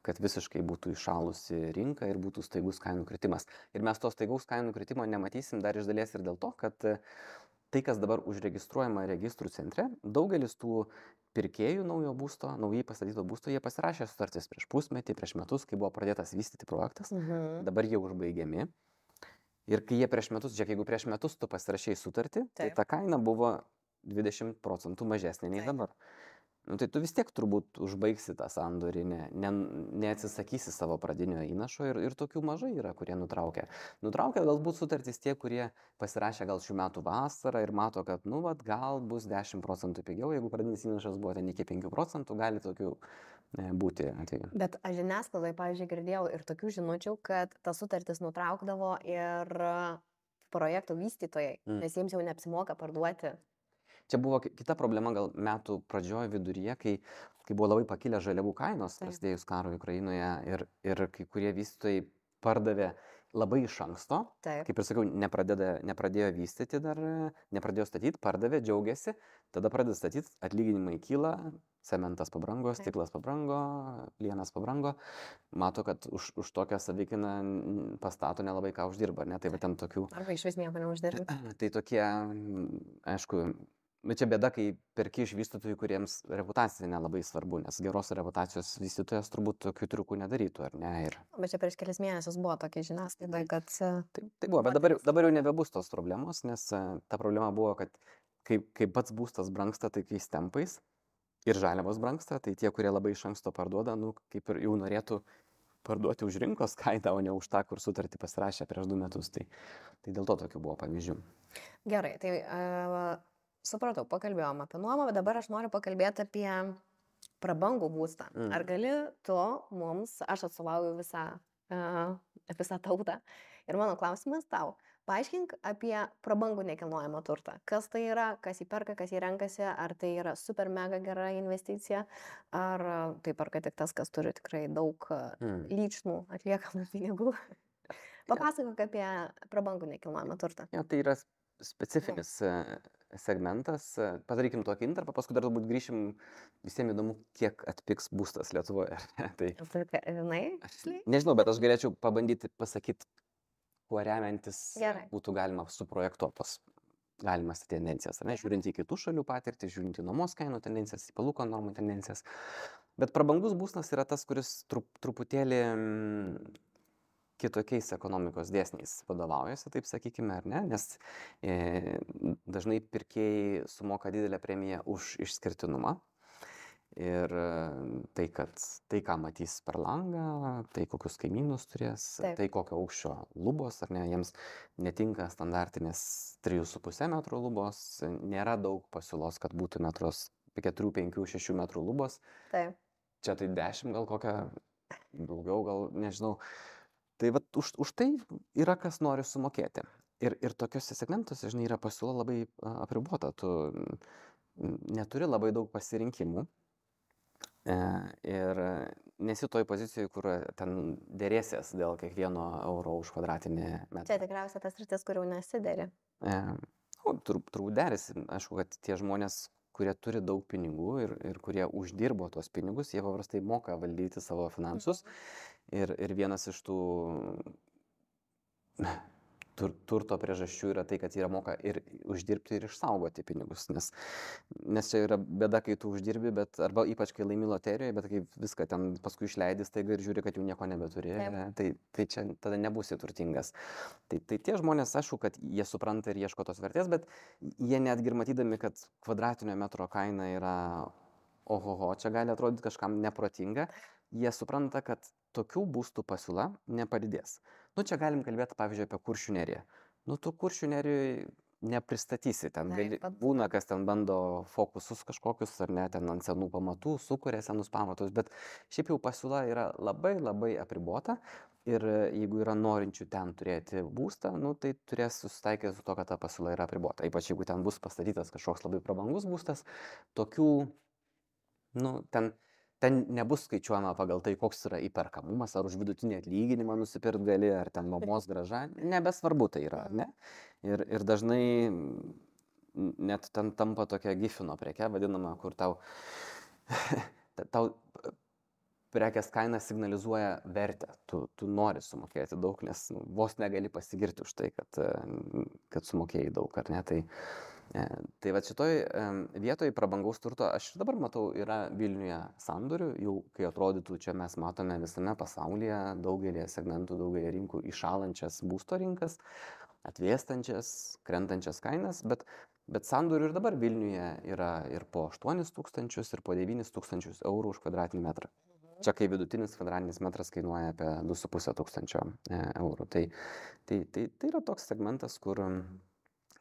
kad visiškai būtų įšalusi rinka ir būtų staigus kainų kritimas. Ir mes to staigaus kainų kritimo nematysim dar iš dalies ir dėl to, kad tai, kas dabar užregistruojama registrų centre, daugelis tų pirkėjų naujo būsto, naujai pastatyto būsto, jie pasirašė sutartis prieš pusmetį, prieš metus, kai buvo pradėtas vystyti projektas, dabar jie užbaigiami. Ir kai jie prieš metus, žiūrėk, jeigu prieš metus tu pasirašėjai sutartį, tai ta kaina buvo 20% mažesnė nei dabar. Tai tu vis tiek turbūt užbaigsi tą sandorį, neatsisakysi savo pradinio įnašo ir tokių mažai yra, kurie nutraukia. Nutraukia galbūt sutartys tie, kurie pasirašė gal šių metų vasarą ir mato, kad gal bus 10% pigiau, jeigu pradinis įnašas buvo ten iki 5%, gali tokių būti atveju. Bet aš žiniasklaidai, pavyzdžiui, girdėjau ir tokių žinučių, kad tas sutartis nutraukdavo ir projektų vystytojai, nes jiems jau neapsimoka parduoti. Čia buvo kita problema gal metų pradžioje viduryje, kai buvo labai pakilę žaliavų kainos, prasidėjus karui Ukrainoje ir kai kurie vystytojai pardavė labai iš anksto, kaip ir sakiau, nepradėjo vystyti dar, nepradėjo statyti, pardavė, džiaugiasi, tada pradeda statyti, atlyginimai kyla, cementas pabrango, stiklas pabrango, plienas pabrango, mato, kad už tokią savikainą pastato nelabai ką uždirba, ne, tai va ten tokių. Arba iš vis nieko neuždirba. Tai tokie, aišku, bet čia bėda, kai perki iš vystytojų, kuriems reputacija nelabai svarbu, nes geros reputacijos vystytojas turbūt tokių triukų nedarytų, ar ne? Bet čia prieš kelias mėnesius buvo tokia žiniasklaida, kad... Tai buvo, bet dabar jau nebebus tos problemos, nes ta problema buvo, kad kai pats būstas brangsta taikiais tempais ir žaliavos brangsta, tai tie, kurie labai iš anksto parduoda, kaip ir jau norėtų parduoti už rinkos kainą, o ne už tą, kur sutartį pasirašė prieš 2 metus. Tai dėl to tokių buvo pavyzdžių. Gerai, tai... Supratau, pakalbėjom apie nuomą, bet dabar aš noriu pakalbėti apie prabangų būstą. Ar gali tu mums, aš atstovauju visą tautą ir mano klausimas tau, paaiškink apie prabangų nekilnojamą turtą. Kas tai yra, kas jį perka, kas jį renkasi, ar tai yra super mega gera investicija, ar tai perka tik tas, kas turi tikrai daug lyčnų atliekamų pinigų. Papasakok apie prabangų nekilnojamą turtą. Ja, tai yra specifinis segmentas. Padarykim tokį intarpą, paskui dar turbūt grįšim, visiems įdomu, kiek atpigs būstas Lietuvoje. Tai, nežinau, bet aš galėčiau pabandyti pasakyti, kuo remiantis būtų galima suprojektuoti tos galimas tendencijas, ar ne, žiūrint į kitų šalių patirtį, žiūrint į nuomos kainų tendencijas, į palūkanų normų tendencijas. Bet prabangus būstas yra tas, kuris truputėlį kitokiais ekonomikos dėsniais vadovaujasi, taip sakykime, ar ne, nes dažnai pirkėjai sumoka didelę premiją už išskirtinumą. Ir tai, ką matys per langą, tai kokius kaimynus turės, Taip. tai kokio aukščio lubos, ar ne, jiems netinka standartinės 3,5 metrų lubos, nėra daug pasiūlos, kad būtų 4, 5, 6 metrų lubos. Taip. Čia tai 10 gal kokią, daugiau gal, nežinau. Tai vat už tai yra kas nori sumokėti. Ir tokiuose segmentuose, žinai, yra pasiūla labai apribota. Tu neturi labai daug pasirinkimų. Ir nesi toj pozicijoje, kur ten dėrėsies dėl kiekvieno euro už kvadratinį metrą. Čia tikriausiai tas rytis, kur jau nesideri. Turbūt derėsi. Aišku, kad tie žmonės, kurie turi daug pinigų ir kurie uždirbo tuos pinigus, jie paprastai moka valdyti savo finansus. Ir vienas iš tų turto priežasčių yra tai, kad jie moka ir uždirbti ir išsaugoti pinigus, nes čia yra bėda, kai tu uždirbi, arba ypač kai laimi loterijoje, bet kai viską ten paskui išleidi staiga ir žiūri, kad jau nieko nebeturi, tai čia tada nebūsi turtingas. Tai tie žmonės, aišku, kad jie supranta ir ieško tos vertės, bet jie netgi ir matydami, kad kvadratinio metro kaina yra ohoho, čia gali atrodyti kažkam neprotinga, jie supranta, kad tokių būstų pasiūla nepadidės. Čia galim kalbėti, pavyzdžiui, apie Kuršių neriją. Tu Kuršių nerijoje nepristatysi, ten būna, kas ten bando fokusus kažkokius, ar ne, ten ant senų pamatų, sukuria senus pamatus, bet šiaip jau pasiūla yra labai labai apribota ir jeigu yra norinčių ten turėti būstą, tai turės susitaikyti su to, kad ta pasiūla yra apribota. Ypač jeigu ten bus pastatytas kažkoks labai prabangus būstas, tokių, ten nebus skaičiuojama pagal tai, koks yra įperkamumas, ar už vidutinį atlyginimą nusipirkt gali, ar ten nuomos grąža, nebesvarbu tai yra, ar ne? Ir dažnai net ten tampa tokia gifino preke, vadinama, kur tau prekės kaina signalizuoja vertę, tu nori sumokėti daug, nes vos negali pasigirti už tai, kad sumokėjai daug, ar ne? Tai va šitoj vietoj prabangaus turto aš ir dabar matau yra Vilniuje sandorių, jau kai atrodytų čia mes matome visame pasaulyje daugelį segmentų, daugelį rinkų iššalančias būsto rinkas, atvėstančias, krentančias kainas, bet sandorių ir dabar Vilniuje yra ir po 8 000 ir po 9 000 eurų už kvadratinį metrą. Čia kai vidutinis kvadratinis metras kainuoja apie 2,5 eurų. Tai yra toks segmentas, kur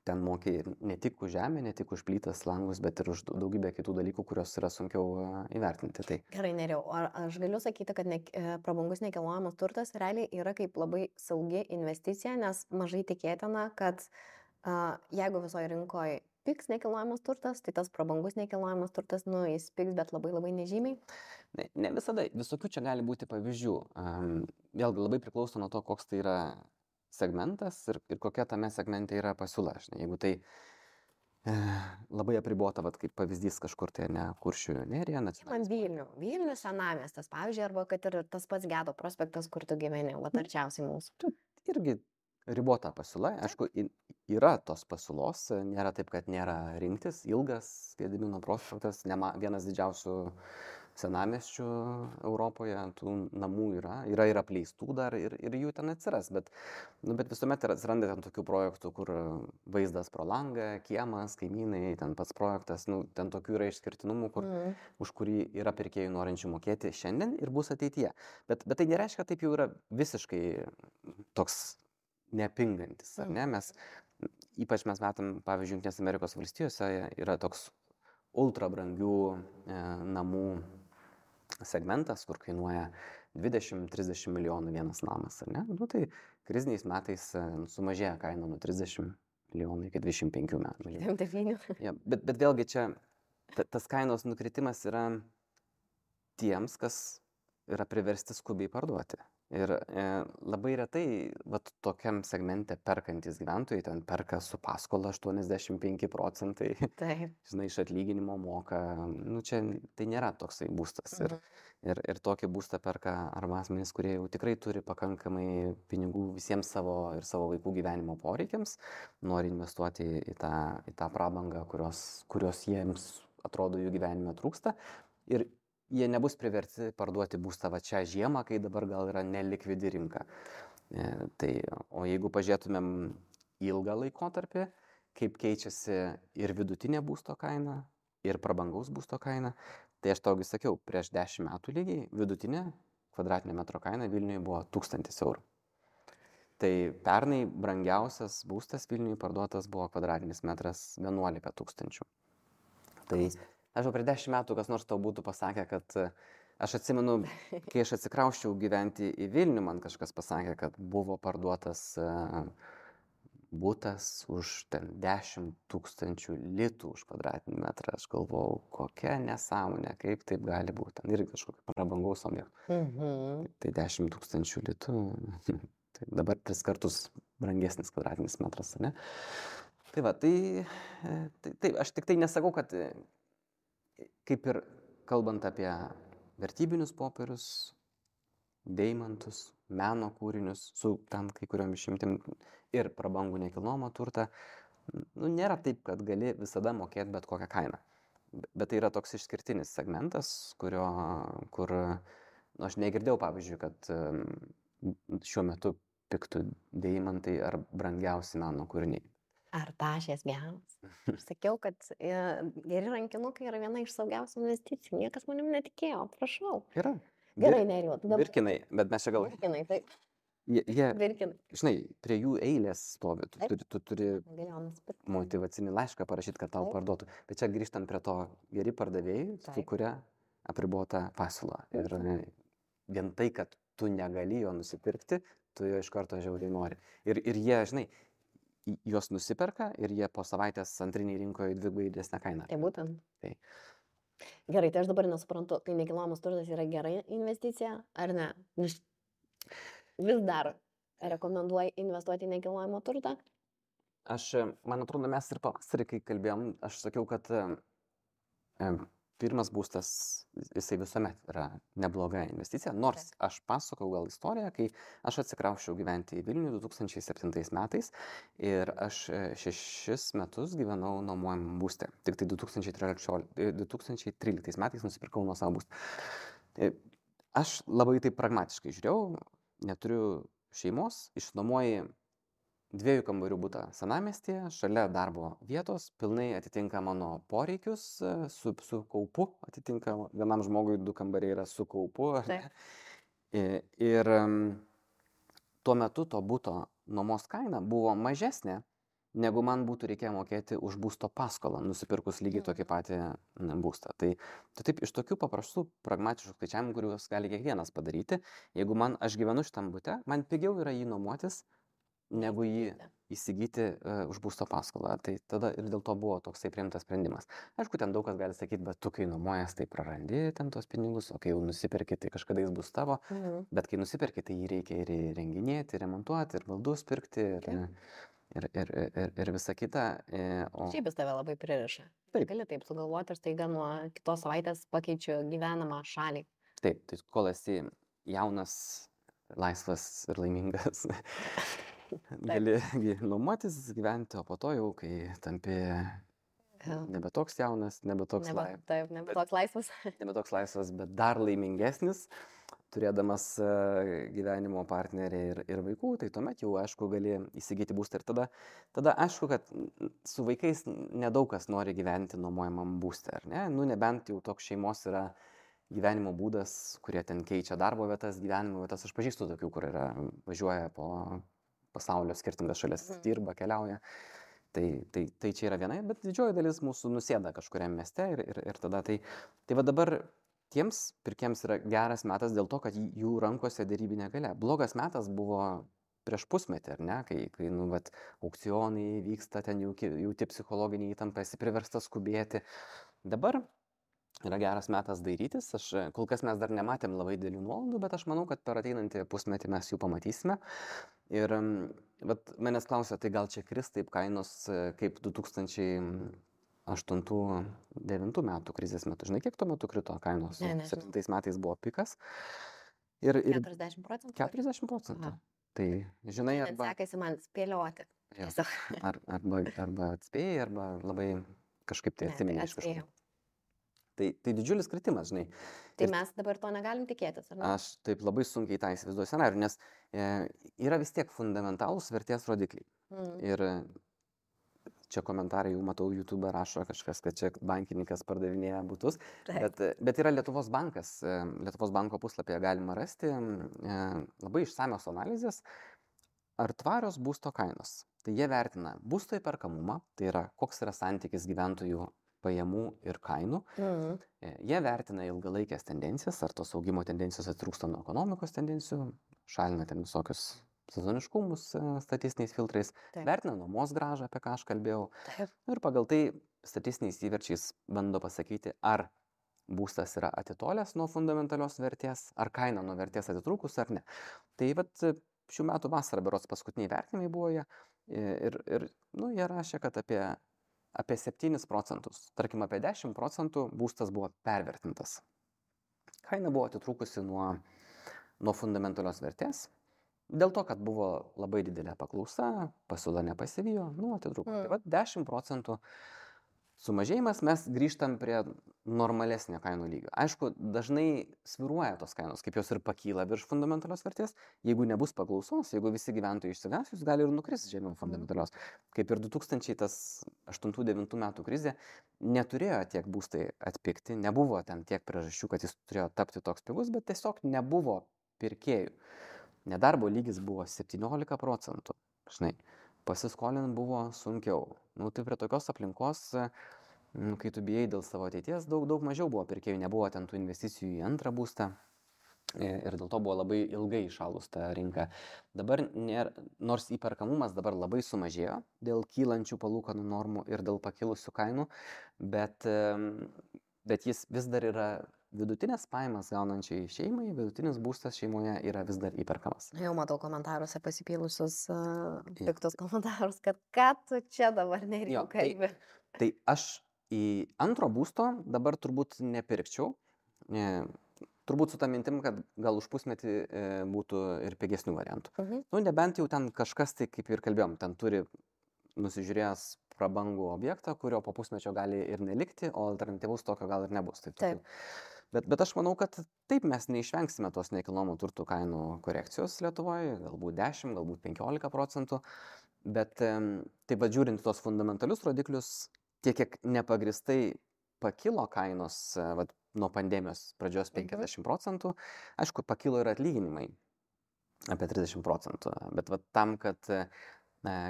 ten mokė ne tik už žemę, ne tik už plytas, langus, bet ir už daugybę kitų dalykų, kurios yra sunkiau įvertinti. Gerai, Nerijau, ar aš galiu sakyti, kad prabangus nekilnojamas turtas realiai yra kaip labai saugi investicija, nes mažai tikėtina, kad jeigu visoje rinkoje pigs nekilnojamas turtas, tai tas prabangus nekilnojamas turtas, jis pigs, bet labai labai nežymiai? Ne visada, visokių čia gali būti pavyzdžių. Vėlgi labai priklauso nuo to, koks tai yra segmentas ir kokia tame segmente yra pasiūla. Jeigu tai labai apribota, kaip pavyzdys kažkur tai ne Kuršių nerija. Man Vilnių senamiestas, pavyzdžiui, arba kad ir tas pats Gedo prospektas, kur tu gyveni, arčiausiai mūsų. Irgi ribota pasiūla, aišku, yra tos pasiūlos, nėra taip, kad nėra rinktis, ilgas Gedimino prospektas, vienas didžiausių senamiesčių Europoje, tų namų yra ir apleistų dar ir jų ten atsiras, bet visuomet atsiranda ten tokių projektų, kur vaizdas pro langą, kiemas, kaimynai, ten pats projektas, ten tokių yra išskirtinumų, už kurį yra pirkėjų norinčių mokėti šiandien ir bus ateityje. Bet tai nereiškia, kad taip jau yra visiškai toks nepingantis, ar ne? Ypač mes matom, pavyzdžiui, Jungtinės Amerikos valstijose yra toks ultra brangių namų segmentas, kur kainuoja 20-30 milijonų vienas namas, ar ne? Tai kriziniais metais sumažėja kaina nuo 30 milijonų iki 25 metų. Ja, bet vėlgi čia tas kainos nukritimas yra tiems, kas yra priversti skubiai parduoti. Ir labai retai tokiam segmente perkantys gyventojai ten perka su paskola 85%, Taip. žinai, iš atlyginimo moka, nu čia tai nėra toksai būstas. Ir tokį būstą perka arba asmenys, kurie jau tikrai turi pakankamai pinigų visiems savo ir savo vaikų gyvenimo poreikiams, nori investuoti į tą prabangą, kurios jiems atrodo jų gyvenime trūksta. Ir jie nebus priversti parduoti būstą va čia žiemą, kai dabar gal yra nelikvidi rinka. O jeigu pažiūrėtumėm ilgą laikotarpį, kaip keičiasi ir vidutinė būsto kaina, ir prabangaus būsto kaina, tai aš taugi sakiau, prieš 10 metų lygiai vidutinė kvadratinio metro kaina Vilniuje buvo 1000 eurų. Tai pernai brangiausias būstas Vilniuje parduotas buvo kvadratinis metras 11 000. Tai aš jau prieš 10 metų kas nors tau būtų pasakę, kad aš atsimenu, kai aš atsikrausčiau gyventi į Vilnių, man kažkas pasakė, kad buvo parduotas būtas už 10 000 litų už kvadratinį metrą. Aš galvojau, kokia nesąmonė, kaip taip gali būti. Ten irgi kažkokio prabangaus objekto. Tai 10 000 litų, tai dabar 3 kartus brangesnis kvadratinis metras, ne? Tai va, tai aš tik tai nesakau, kad kaip ir kalbant apie vertybinius popierius, deimantus, meno kūrinius, su tam kai kuriom išimtim ir prabangų nekilnojamą turtą, nu, nėra taip, kad gali visada mokėti bet kokią kainą. Bet tai yra toks išskirtinis segmentas, kur aš negirdėjau, pavyzdžiui, kad šiuo metu piktų deimantai ar brangiausi meno kūriniai. Ar tašės geras? Aš sakiau, kad geri rankinukai yra viena iš saugiausių investicijų. Niekas manim netikėjo, prašau. Yra. Gerai, Nerijau. Virkinai, bet mes čia gal... Virkinai, taip. Virkinai. Žinai, prie jų eilės stovi. Tu turi motyvacinį laišką parašyti, kad tau parduotų. Bet čia grįžtant prie to, geri pardavėjai sukuria apribotą pasiūlą. Ir vien tai, kad tu negali jo nusipirkti, tu jo iš karto žiauriai nori. Ir jie, žinai, juos nusiperka ir jie po savaitės antriniai rinkoje dvigubai didesnę kainą. Tai būtent. Tai. Gerai, tai aš dabar nesuprantu, tai nekilnojamas turtas yra gera investicija ar ne? Vis dar rekomenduoji investuoti į nekilnojamą turtą? Man atrodo, mes ir pavasarį, kai kalbėjom, aš sakiau, kad pirmas būstas, jisai visuomet yra nebloga investicija, nors aš pasakau gal istoriją, kai aš atsikrausčiau gyventi į Vilnių 2007 metais ir aš 6 metus gyvenau nuomojamam būste. Tik tai 2013 metais nusipirkau nuosavą būstą. Aš labai taip pragmatiškai žiūrėjau, neturiu šeimos, išnuomoju 2 kambarių butą senamiestyje, šalia darbo vietos, pilnai atitinka mano poreikius, su kaupu, atitinka vienam žmogui 2 kambariai yra su kaupu. Ir tuo metu to buto nuomos kaina buvo mažesnė, negu man būtų reikėję mokėti už būsto paskolą, nusipirkus lygiai tokį patį būstą. Tai taip iš tokių paprastų, pragmatiškų skaičiavimų, kuriuos gali kiekvienas padaryti, jeigu aš gyvenu šitam bute, man pigiau yra jį nuomotis, negu jį įsigyti už būsto paskolą. Tai tada ir dėl to buvo toksai priimtas sprendimas. Aišku, ten daug kas gali sakyti, bet tu kai nuomojas, tai prarandi ten tos pinigus, o kai jau nusipirki, tai kažkada jis bus tavo. Bet kai nusipirki, tai jį reikia ir renginėti, remontuoti, ir baldus pirkti, ir visa kita. Šiaip jis tave labai pririša. Taip. Gali taip sugalvoti ir staiga nuo kitos savaitės pakeičiu gyvenamą šalį. Taip, tai kol esi jaunas, laisvas ir laimingas. Gali nuomotis, gyventi, o po to jau, kai tampi nebe toks jaunas, nebe toks laisvas. Nebe toks laisvas, bet dar laimingesnis, turėdamas gyvenimo partnerį ir vaikų, tai tuomet jau, aišku, gali įsigyti būstą. Ir tada aišku, kad su vaikais nedaug kas nori gyventi nuomojamam būste, ar ne? Nu, nebent jau toks šeimos yra gyvenimo būdas, kurie ten keičia darbo vietas, gyvenimo vietas. Aš pažįstu tokių, kur važiuoja po pasaulio skirtingas šalis, dirba, keliauja. Tai čia yra viena, bet didžioji dalis mūsų nusėda kažkuriam mieste ir tada tai va dabar tiems pirkėjams yra geras metas dėl to, kad jų rankose derybinė galia. Blogas metas buvo prieš pusmetį, ar ne, kai aukcionai vyksta, ten jauti psichologinį įtampą, esi priverstas skubėti. Dabar yra geras metas dairytis. Kol kas mes dar nematėm labai didelių nuolaidų, bet aš manau, kad per ateinantį pusmetį mes jų pamatysime. Ir vat manęs klausia, tai gal čia kris taip kainos kaip 2008-2009 metų krizės metu. Žinai, kiek tuo metu krito kainos? Ne, nežinau. 7 metais buvo pikas. Ir 40%? 40%. Aha. Tai, žinai, Net arba, sekasi man spėlioti. jo, Tiesiog. arba atspėjai, arba labai kažkaip tai Ne, tai atsimeni iš atspėjau. kažkur. Tai didžiulis kritimas, žinai. Tai Ir mes dabar to negalim tikėtis, ar ne? aš taip labai sunkiai tą įsivaizduoju scenarių, nes yra vis tiek fundamentalūs vertės rodikliai. Ir čia komentarai jau matau, YouTube rašo kažkas, kad čia bankininkas pardavinėja butus. Taip. Bet yra Lietuvos bankas, Lietuvos banko puslapyje galima rasti labai išsamios analizės, ar tvarios būsto kainos. Tai jie vertina būsto įperkamumą, tai yra koks yra santykis gyventojų pajamų ir kainų. Jie vertina ilgalaikės tendencijas, ar tos augimo tendencijos atitrūksta nuo ekonomikos tendencijų, šalina ten visokius sezoniškumus statistiniais filtrais, Taip. vertina nuomos grąžą, apie ką aš kalbėjau. Taip. Ir pagal tai statistiniais įverčiais bando pasakyti, ar būstas yra atitolęs nuo fundamentalios vertės, ar kaina nuo vertės atitrūkus ar ne. Tai vat šių metų vasarą berods paskutiniai vertinimai buvo jie ir jie rašė, kad apie 7%, tarkim apie 10% būstas buvo pervertintas. Kaina buvo atitrūkusi nuo fundamentalios vertės. Dėl to, kad buvo labai didelė paklausa, pasiūla nepasivijo, atitrūko. Tai va 10% sumažėjimas, mes grįžtam prie normalesnio kainų lygio. Aišku, dažnai sviruoja tos kainos, kaip jos ir pakyla virš fundamentalios vertės. Jeigu nebus paklausos, jeigu visi gyventojai išsigąs, jūs gali ir nukristi žemiau fundamentalios. Kaip ir 2008-2009 metų krizė, neturėjo tiek būstai atpigti, nebuvo ten tiek priežasčių, kad jis turėjo tapti toks pigus, bet tiesiog nebuvo pirkėjų. Nedarbo lygis buvo 17%, žinai, pasiskolint buvo sunkiau. Tai prie tokios aplinkos, kai tu bijai dėl savo ateities, daug mažiau buvo pirkėjų, nebuvo ten tų investicijų į antrą būstą ir dėl to buvo labai ilgai įšalus ta rinka. Dabar, nors įperkamumas dabar labai sumažėjo dėl kylančių palūkanų normų ir dėl pakilusių kainų, bet jis vis dar yra vidutinės pajamas gaunančiai šeimai, vidutinis būstas šeimoje yra vis dar įperkamas. Jau matau komentaruose pasipylusius piktus komentarus, kad ką tu čia dabar nereikia kalbėti. Tai aš į antro būsto dabar turbūt nepirkčiau. Turbūt su tą mintim, kad gal už pusmetį būtų ir pigesnių variantų. Nebent jau ten kažkas, tai kaip ir kalbėjom, ten turi nusižiūrėjęs prabangų objektą, kurio po pusmečio gali ir nelikti, o alternatyvus tokio gal ir nebus. Taip. Bet aš manau, kad taip mes neišvengsime tos nekilnojamo turto kainų korekcijos Lietuvoje, galbūt 10, galbūt 15%, bet taip pat žiūrint tos fundamentalius rodiklius, tiek kiek nepagristai pakilo kainos nuo pandemijos pradžios 50%, aišku, pakilo ir atlyginimai apie 30%, bet tam, kad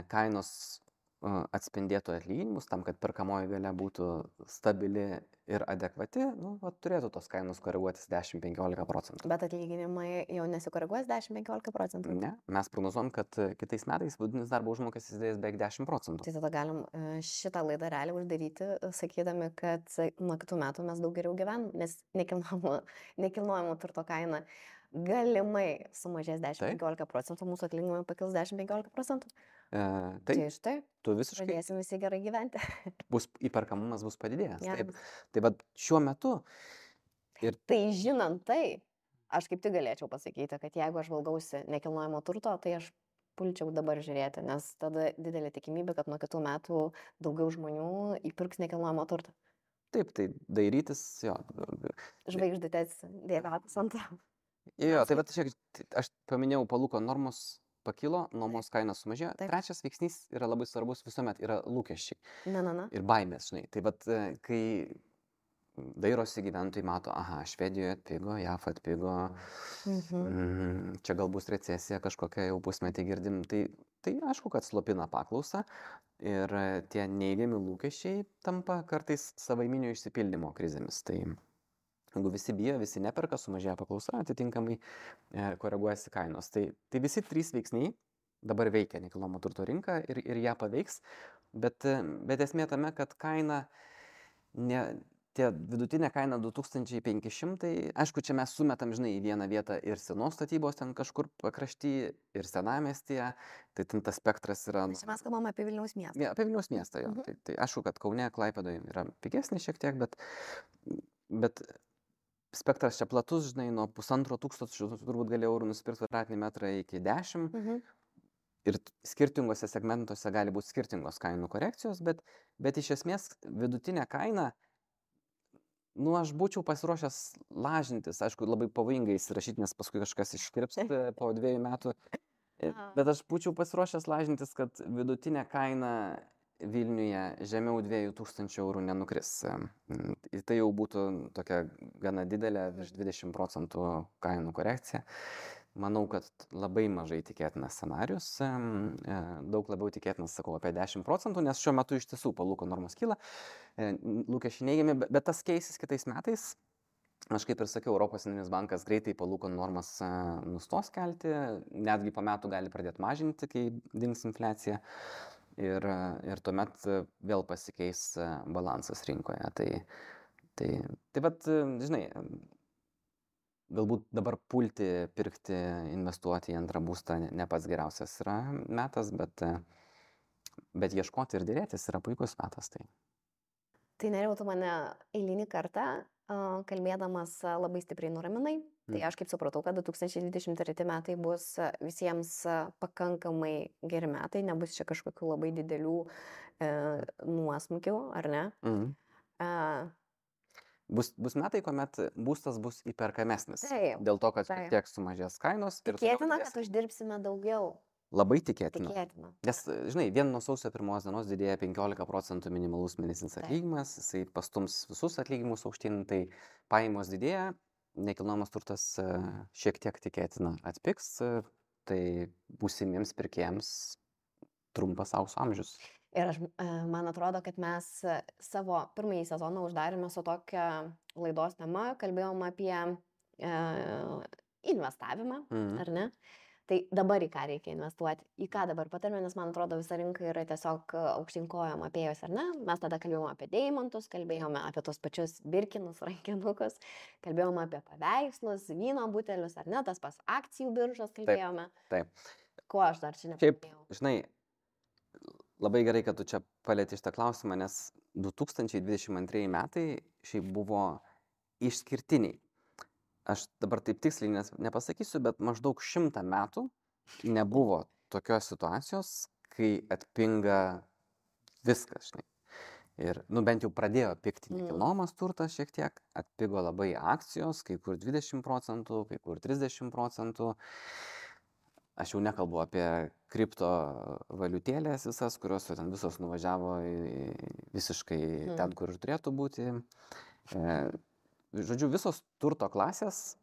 kainos atspindėtų atlyginimus, tam, kad perkamoji galia būtų stabili ir adekvati, turėtų tos kainos koreguotis 10-15%. Bet atlyginimai jau nesikoreguos 10-15%? Ne, mes prognozuojam, kad kitais metais vidutinis darbo užmokestis didės beveik 10%. Tai tada galim šitą laidą realiai uždaryti, sakydami, kad nuo kitų metų mes daug geriau gyvenam, nes nekilnojamo turto kaina galimai sumažės 10-15%, mūsų atlyginimai pakils 10-15%. Tai štai, tu visiškai pradėsim visi gerai gyventi. Įperkamumas bus padidėjęs. Taip. Tai va šiuo metu. Tai žinant tai, aš kaip tik galėčiau pasakyti, kad jeigu aš valgausi nekilnojamo turto, tai aš pulčiau dabar žiūrėti, nes tada didelė tikimybė, kad nuo kitų metų daugiau žmonių įpirks nekilnojamo turto. Taip, tai dairytis, jo. Žvaigždutės dėvėtas ant. Jo, tai va, aš paminėjau palūkanų normos pakilo, nuomos kainos sumažėjo. Taip. Trečias veiksnys yra labai svarbus, visuomet yra lūkesčiai. Ir baimės, žinai. Tai vat, kai dairosi gyventojai, mato, Švedijoje atpigo, JAF atpigo, čia gal bus recesija kažkokia, jau pusmetį girdim. Tai aišku, kad slopina paklausą ir tie neigiami lūkesčiai tampa kartais savaiminio išsipildymo krizėmis. Tai jeigu visi bijo, visi neperka, sumažėja paklausa, atitinkamai koreguojasi kainos. Tai visi trys veiksniai dabar veikia nekilnojamo turto rinką ir ją paveiks, bet esmė tame, kad kaina tie vidutinė kaina 2500, aišku, čia mes sumetam, žinai, į vieną vietą ir senos statybos ten kažkur pakrašty, ir senamiestyje, tai ten tas spektras yra... Čia mes kalbam apie Vilniaus miestą. Ja, apie Vilniaus miestą, jo. Tai aišku, kad Kaune, Klaipėdoje yra pigesnis šiek tiek, bet spektras čia platus, žinai, nuo 1500 turbūt gali eurų nusipirkti kvadratinį metrą iki 10. Ir skirtingose segmentuose gali būti skirtingos kainų korekcijos, bet iš esmės vidutinė kaina, aš būčiau pasiruošęs lažintis, aišku, labai pavojingai įsirašyti, nes paskui kažkas iškirps po 2 metų, bet aš būčiau pasiruošęs lažintis, kad vidutinė kaina Vilniuje žemiau 2000 eurų nenukris. Tai jau būtų tokia gana didelė, virš 20% kainų korekcija. Manau, kad labai mažai tikėtinas scenarius, daug labiau tikėtinas, sakau, apie 10%, nes šiuo metu iš tiesų palūkanų normos kyla, lūkesčiai neigiami, bet tas keisis kitais metais. Aš kaip ir sakiau, Europos centrinis bankas greitai palūkanų normas nustos kelti, netgi po metų gali pradėti mažinti, kai dings infliacija. Ir tuomet vėl pasikeis balansas rinkoje. Tai vat, žinai, galbūt dabar pulti, pirkti, investuoti į antrą būstą ne pats geriausias yra metas, bet ieškoti ir dėrėtis yra puikus metas. Tai Nerijau, tu mane eilinį kartą kalbėdamas labai stipriai nuraminai. Tai aš kaip supratau, kad 2023 metai bus visiems pakankamai geri metai, nebus čia kažkokių labai didelių nuosmukių, ar ne? Bus metai, kuomet būstas bus įperkamesnis. Taip, dėl to, kad šiek tiek sumažės kainos. Tikėtina, kad uždirbsime daugiau. Labai tikėtina. Nes, žinai, vien nuo sausio 1 dienos didėja 15% minimalus mėnesinis atlyginimas, jisai pastums visus atlyginimus aukštyn, tai pajamos didėja, nekilnojamas turtas šiek tiek tikėtina atpigs, tai būsimiems pirkėjams trumpas aukso amžius. Ir man atrodo, kad mes savo pirmąjį sezoną uždarėme su tokia laidos tema, kalbėjom apie investavimą, ar ne? Tai dabar į ką reikia investuoti, į ką dabar patarime, nes man atrodo visa rinka yra tiesiog aukštyn kojom apėjus, ar ne? Mes tada kalbėjome apie deimantus, kalbėjome apie tos pačius birkinus, rankinukus, kalbėjome apie paveikslus, vyno butelius, ar ne, tas pas akcijų biržos kalbėjome. Taip. Ko aš dar čia nepaminėjau? Šiaip, žinai, labai gerai, kad tu čia palieti šitą klausimą, nes 2022 metai šiaip buvo išskirtiniai. Aš dabar taip tiksliai nepasakysiu, bet maždaug 100 metų nebuvo tokios situacijos, kai atpinga viskas, žinai. Ir, bent jau pradėjo pigti nekilnojamas turtas šiek tiek, atpigo labai akcijos, kai kur 20%, kai kur 30%. Aš jau nekalbu apie kriptovaliutėlės visas, kurios ten visos nuvažiavo visiškai ten, kur ir turėtų būti. Žodžiu, visos turto klasės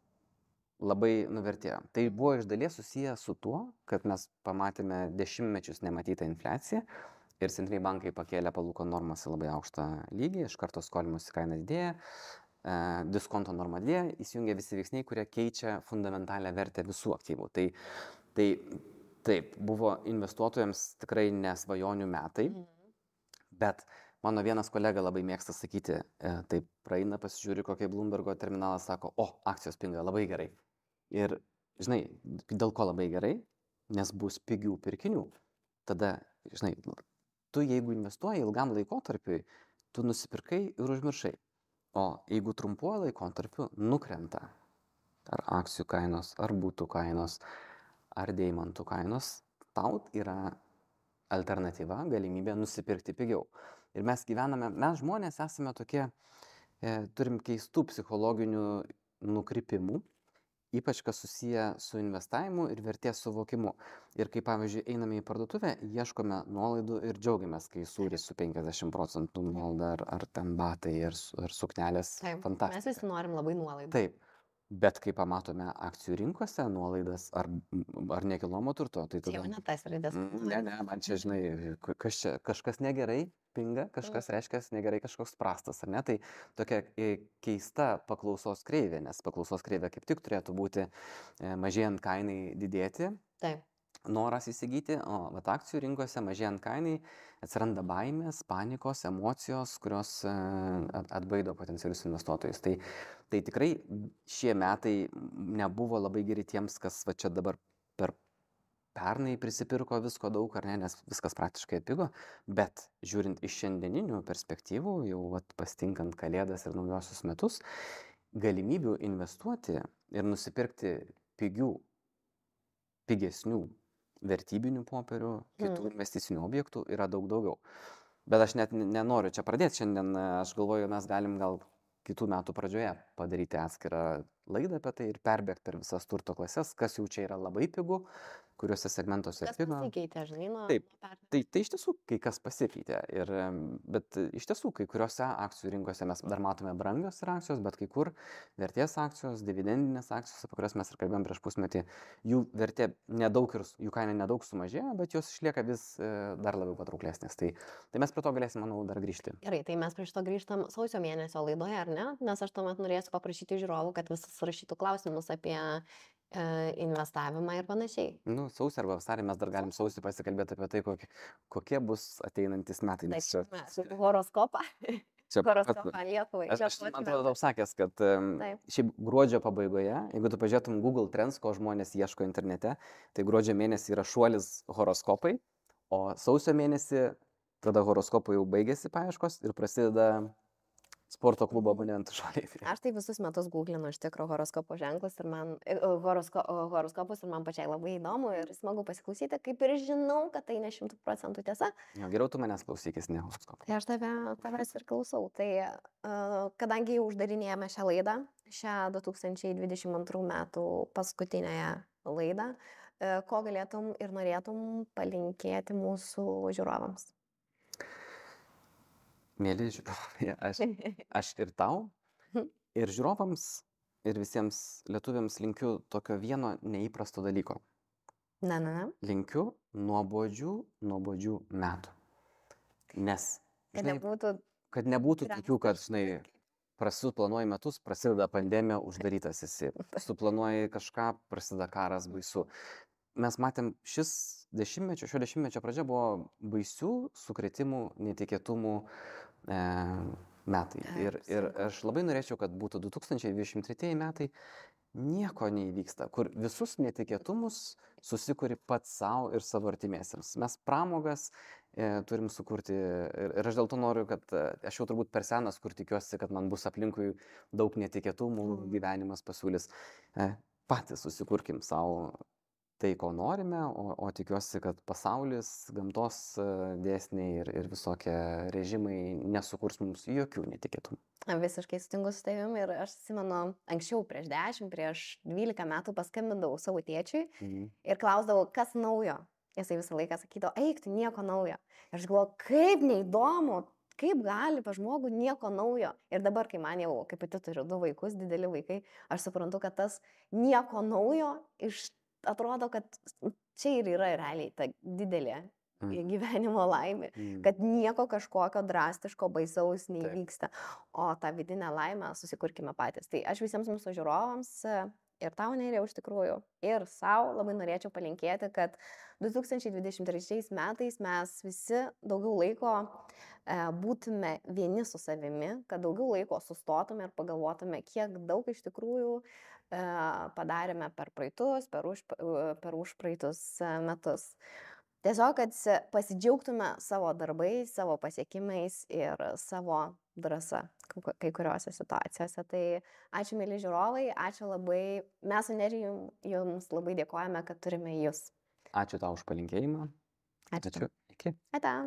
labai nuvertėjo. Tai buvo iš dalies susiję su tuo, kad mes pamatėme dešimtmečius nematytą infliaciją ir centriniai bankai pakėlė palūkanų normas į labai aukštą lygį, iš karto skolimosi kaina didėja, diskonto norma didėja, įsijungia visi veiksniai, kurie keičia fundamentalią vertę visų aktyvų. Tai taip, buvo investuotojams tikrai nesvajonių metai, bet mano vienas kolega labai mėgsta sakyti, taip praeina, pasižiūri, kokie Bloombergo terminalas sako, akcijos pinga labai gerai. Ir, žinai, dėl ko labai gerai? Nes bus pigių pirkinių. Tada, žinai, tu jeigu investuoji ilgam laikotarpiui, tu nusipirkai ir užmiršai. O jeigu trumpuoju laikotarpiu nukrenta ar akcijų kainos, ar būtų kainos, ar deimantų kainos, tau yra alternatyva, galimybė nusipirkti pigiau. Ir mes žmonės esame tokie, turim keistų psichologinių nukrypimų, ypač kas susiję su investavimu ir vertės suvokimu. Ir kai, pavyzdžiui, einame į parduotuvę, ieškome nuolaidų ir džiaugiamės, kai sūris su 50% nuolaida, ar ten batai, ar suknelės. Fantastika. Mes visi norim labai nuolaidų. Taip. Bet kai pamatome akcijų rinkose nuolaidas ar nekilnojamo turto, tai tada... Čia jau ne tas raidės. Ne, man čia, žinai, kažkas negerai pinga, kažkas reiškia negerai, kažkoks prastas, ar ne? Tai tokia keista paklausos kreivė, nes paklausos kreivė kaip tik turėtų būti mažėjant kainai didėti. Taip. noras įsigyti, o vat akcijų rinkose mažėjant kainai atsiranda baimės, panikos, emocijos, kurios atbaido potencialius investuotojus. Tai tikrai šie metai nebuvo labai geri tiems, kas va čia dabar per pernai prisipirko visko daug, ar ne, nes viskas praktiškai atpigo, bet žiūrint iš šiandieninių perspektyvų, jau vat, pastinkant Kalėdas ir naujosius metus, galimybių investuoti ir nusipirkti pigesnių vertybinių popierių, kitų investicinių objektų yra daug daugiau. Bet aš net nenoriu čia pradėti šiandien, aš galvoju, mes galim gal kitų metų pradžioje padaryti atskirą laidą apie tai ir perbėgti per visas turto klases, kas jau čia yra labai pigu, kuriuose segmentuose atpigo. Kas pasikeitė, žinai, nuo Taip, tai iš tiesų kai kas pasikeitė, bet iš tiesų kai kuriuose akcijų rinkose mes dar matome brangios ir akcijos, bet kai kur vertės akcijos, dividendinės akcijos, apie kurias mes ir kalbėjom prieš pusmetį, jų vertė nedaug ir jų kaina nedaug sumažėjo, bet jos išlieka vis dar labiau patrauklesnės. Tai mes prie to galėsim, manau, dar grįžti. Gerai, tai mes prie šito grįžtam sausio mėnesio laidoje, ar ne? Nes aš tuomet norėsiu paprašyti žiūrovų, kad visus rašytų klausimus apie investavimą ir panašiai. Sausį arba vasarį mes dar galim sausį pasikalbėti apie tai, kokie bus ateinantis metai. Taip, horoskopą. Horoskopą Lietuvai. Aš man atrodo tau sakęs, kad šiaip gruodžio pabaigoje, jeigu tu pažiūrėtum Google Trends, ko žmonės ieško internete, tai gruodžio mėnesį yra šuolis horoskopai, o sausio mėnesį tada horoskopų jau baigėsi paieškos ir prasideda sporto klubo abonentų šuoliai. Aš tai visus metus googlinu iš tikro horoskopo ženklus ir man horoskopus ir man pačiai labai įdomu ir smagu pasiklausyti, kaip ir žinau, kad tai ne 100% tiesa. Jo, geriau tu manęs klausykis, ne horoskopą. Tai aš tavęs ir klausau. Tai kadangi jau uždarinėjame šią laidą, šią 2022 metų paskutinėje laidą, ko galėtum ir norėtum palinkėti mūsų žiūrovams? Mėly žiūrovai, aš ir tau, ir žiūrovams, ir visiems lietuviams linkiu tokio vieno neįprasto dalyko. Linkiu nuobodžių metų. Nes, žinai, kad nebūtų tokių, kad, žinai, planuoji metus, prasideda pandemija, uždarytas esi. Suplanuoji kažką, prasideda karas, baisu. Mes matėm, šio dešimtmečio pradžia buvo baisių sukrėtimų, netikėtumų metai. Ir aš labai norėčiau, kad būtų 2023 metai, nieko neįvyksta, kur visus netikėtumus susikuri pats savo ir savo artimiesiems. Mes pramogas turim sukurti ir aš dėl to noriu, kad aš jau turbūt per senas, kur tikiuosi, kad man bus aplinkui daug netikėtumų, gyvenimas pasiūlys. Patys susikurkim savo tai, ko norime, o tikiuosi, kad pasaulis, gamtos dėsniai ir visokie režimai nesukurs mums jokių netikėtumų. Visiškai sutinku su tavimi ir aš atsimenu, anksčiau prieš 12 metų paskambindavau savo tėčiui ir klausdavau, kas naujo. Jisai visą laiką sakydavo, eik, tu nieko naujo. Ir aš galvoju, kaip neįdomu, kaip gali pa žmogų nieko naujo. Ir dabar, kai man jau, kaip pati turiu 2 vaikus, dideli vaikai, aš suprantu, kad tas nieko naujo atrodo, kad čia ir yra realiai ta didelė gyvenimo laimė, kad nieko kažkokio drastiško, baisaus neįvyksta, o tą vidinę laimę susikurkime patys. Tai aš visiems mūsų žiūrovams ir tau, Nerijau, iš tikrųjų, ir savo labai norėčiau palinkėti, kad 2023 metais mes visi daugiau laiko būtume vieni su savimi, kad daugiau laiko sustotume ir pagalvotume, kiek daug iš tikrųjų padarėme per praeitus, per užpraeitus metus. Tiesiog, kad pasidžiaugtume savo darbais, savo pasiekimais ir savo drąsa kai kuriuose situacijose. Tai ačiū, mėly žiūrovai, ačiū labai. Mes su Nerijum jums labai dėkojame, kad turime jūs. Ačiū tau už palinkėjimą. Ačiū. Iki. Ate.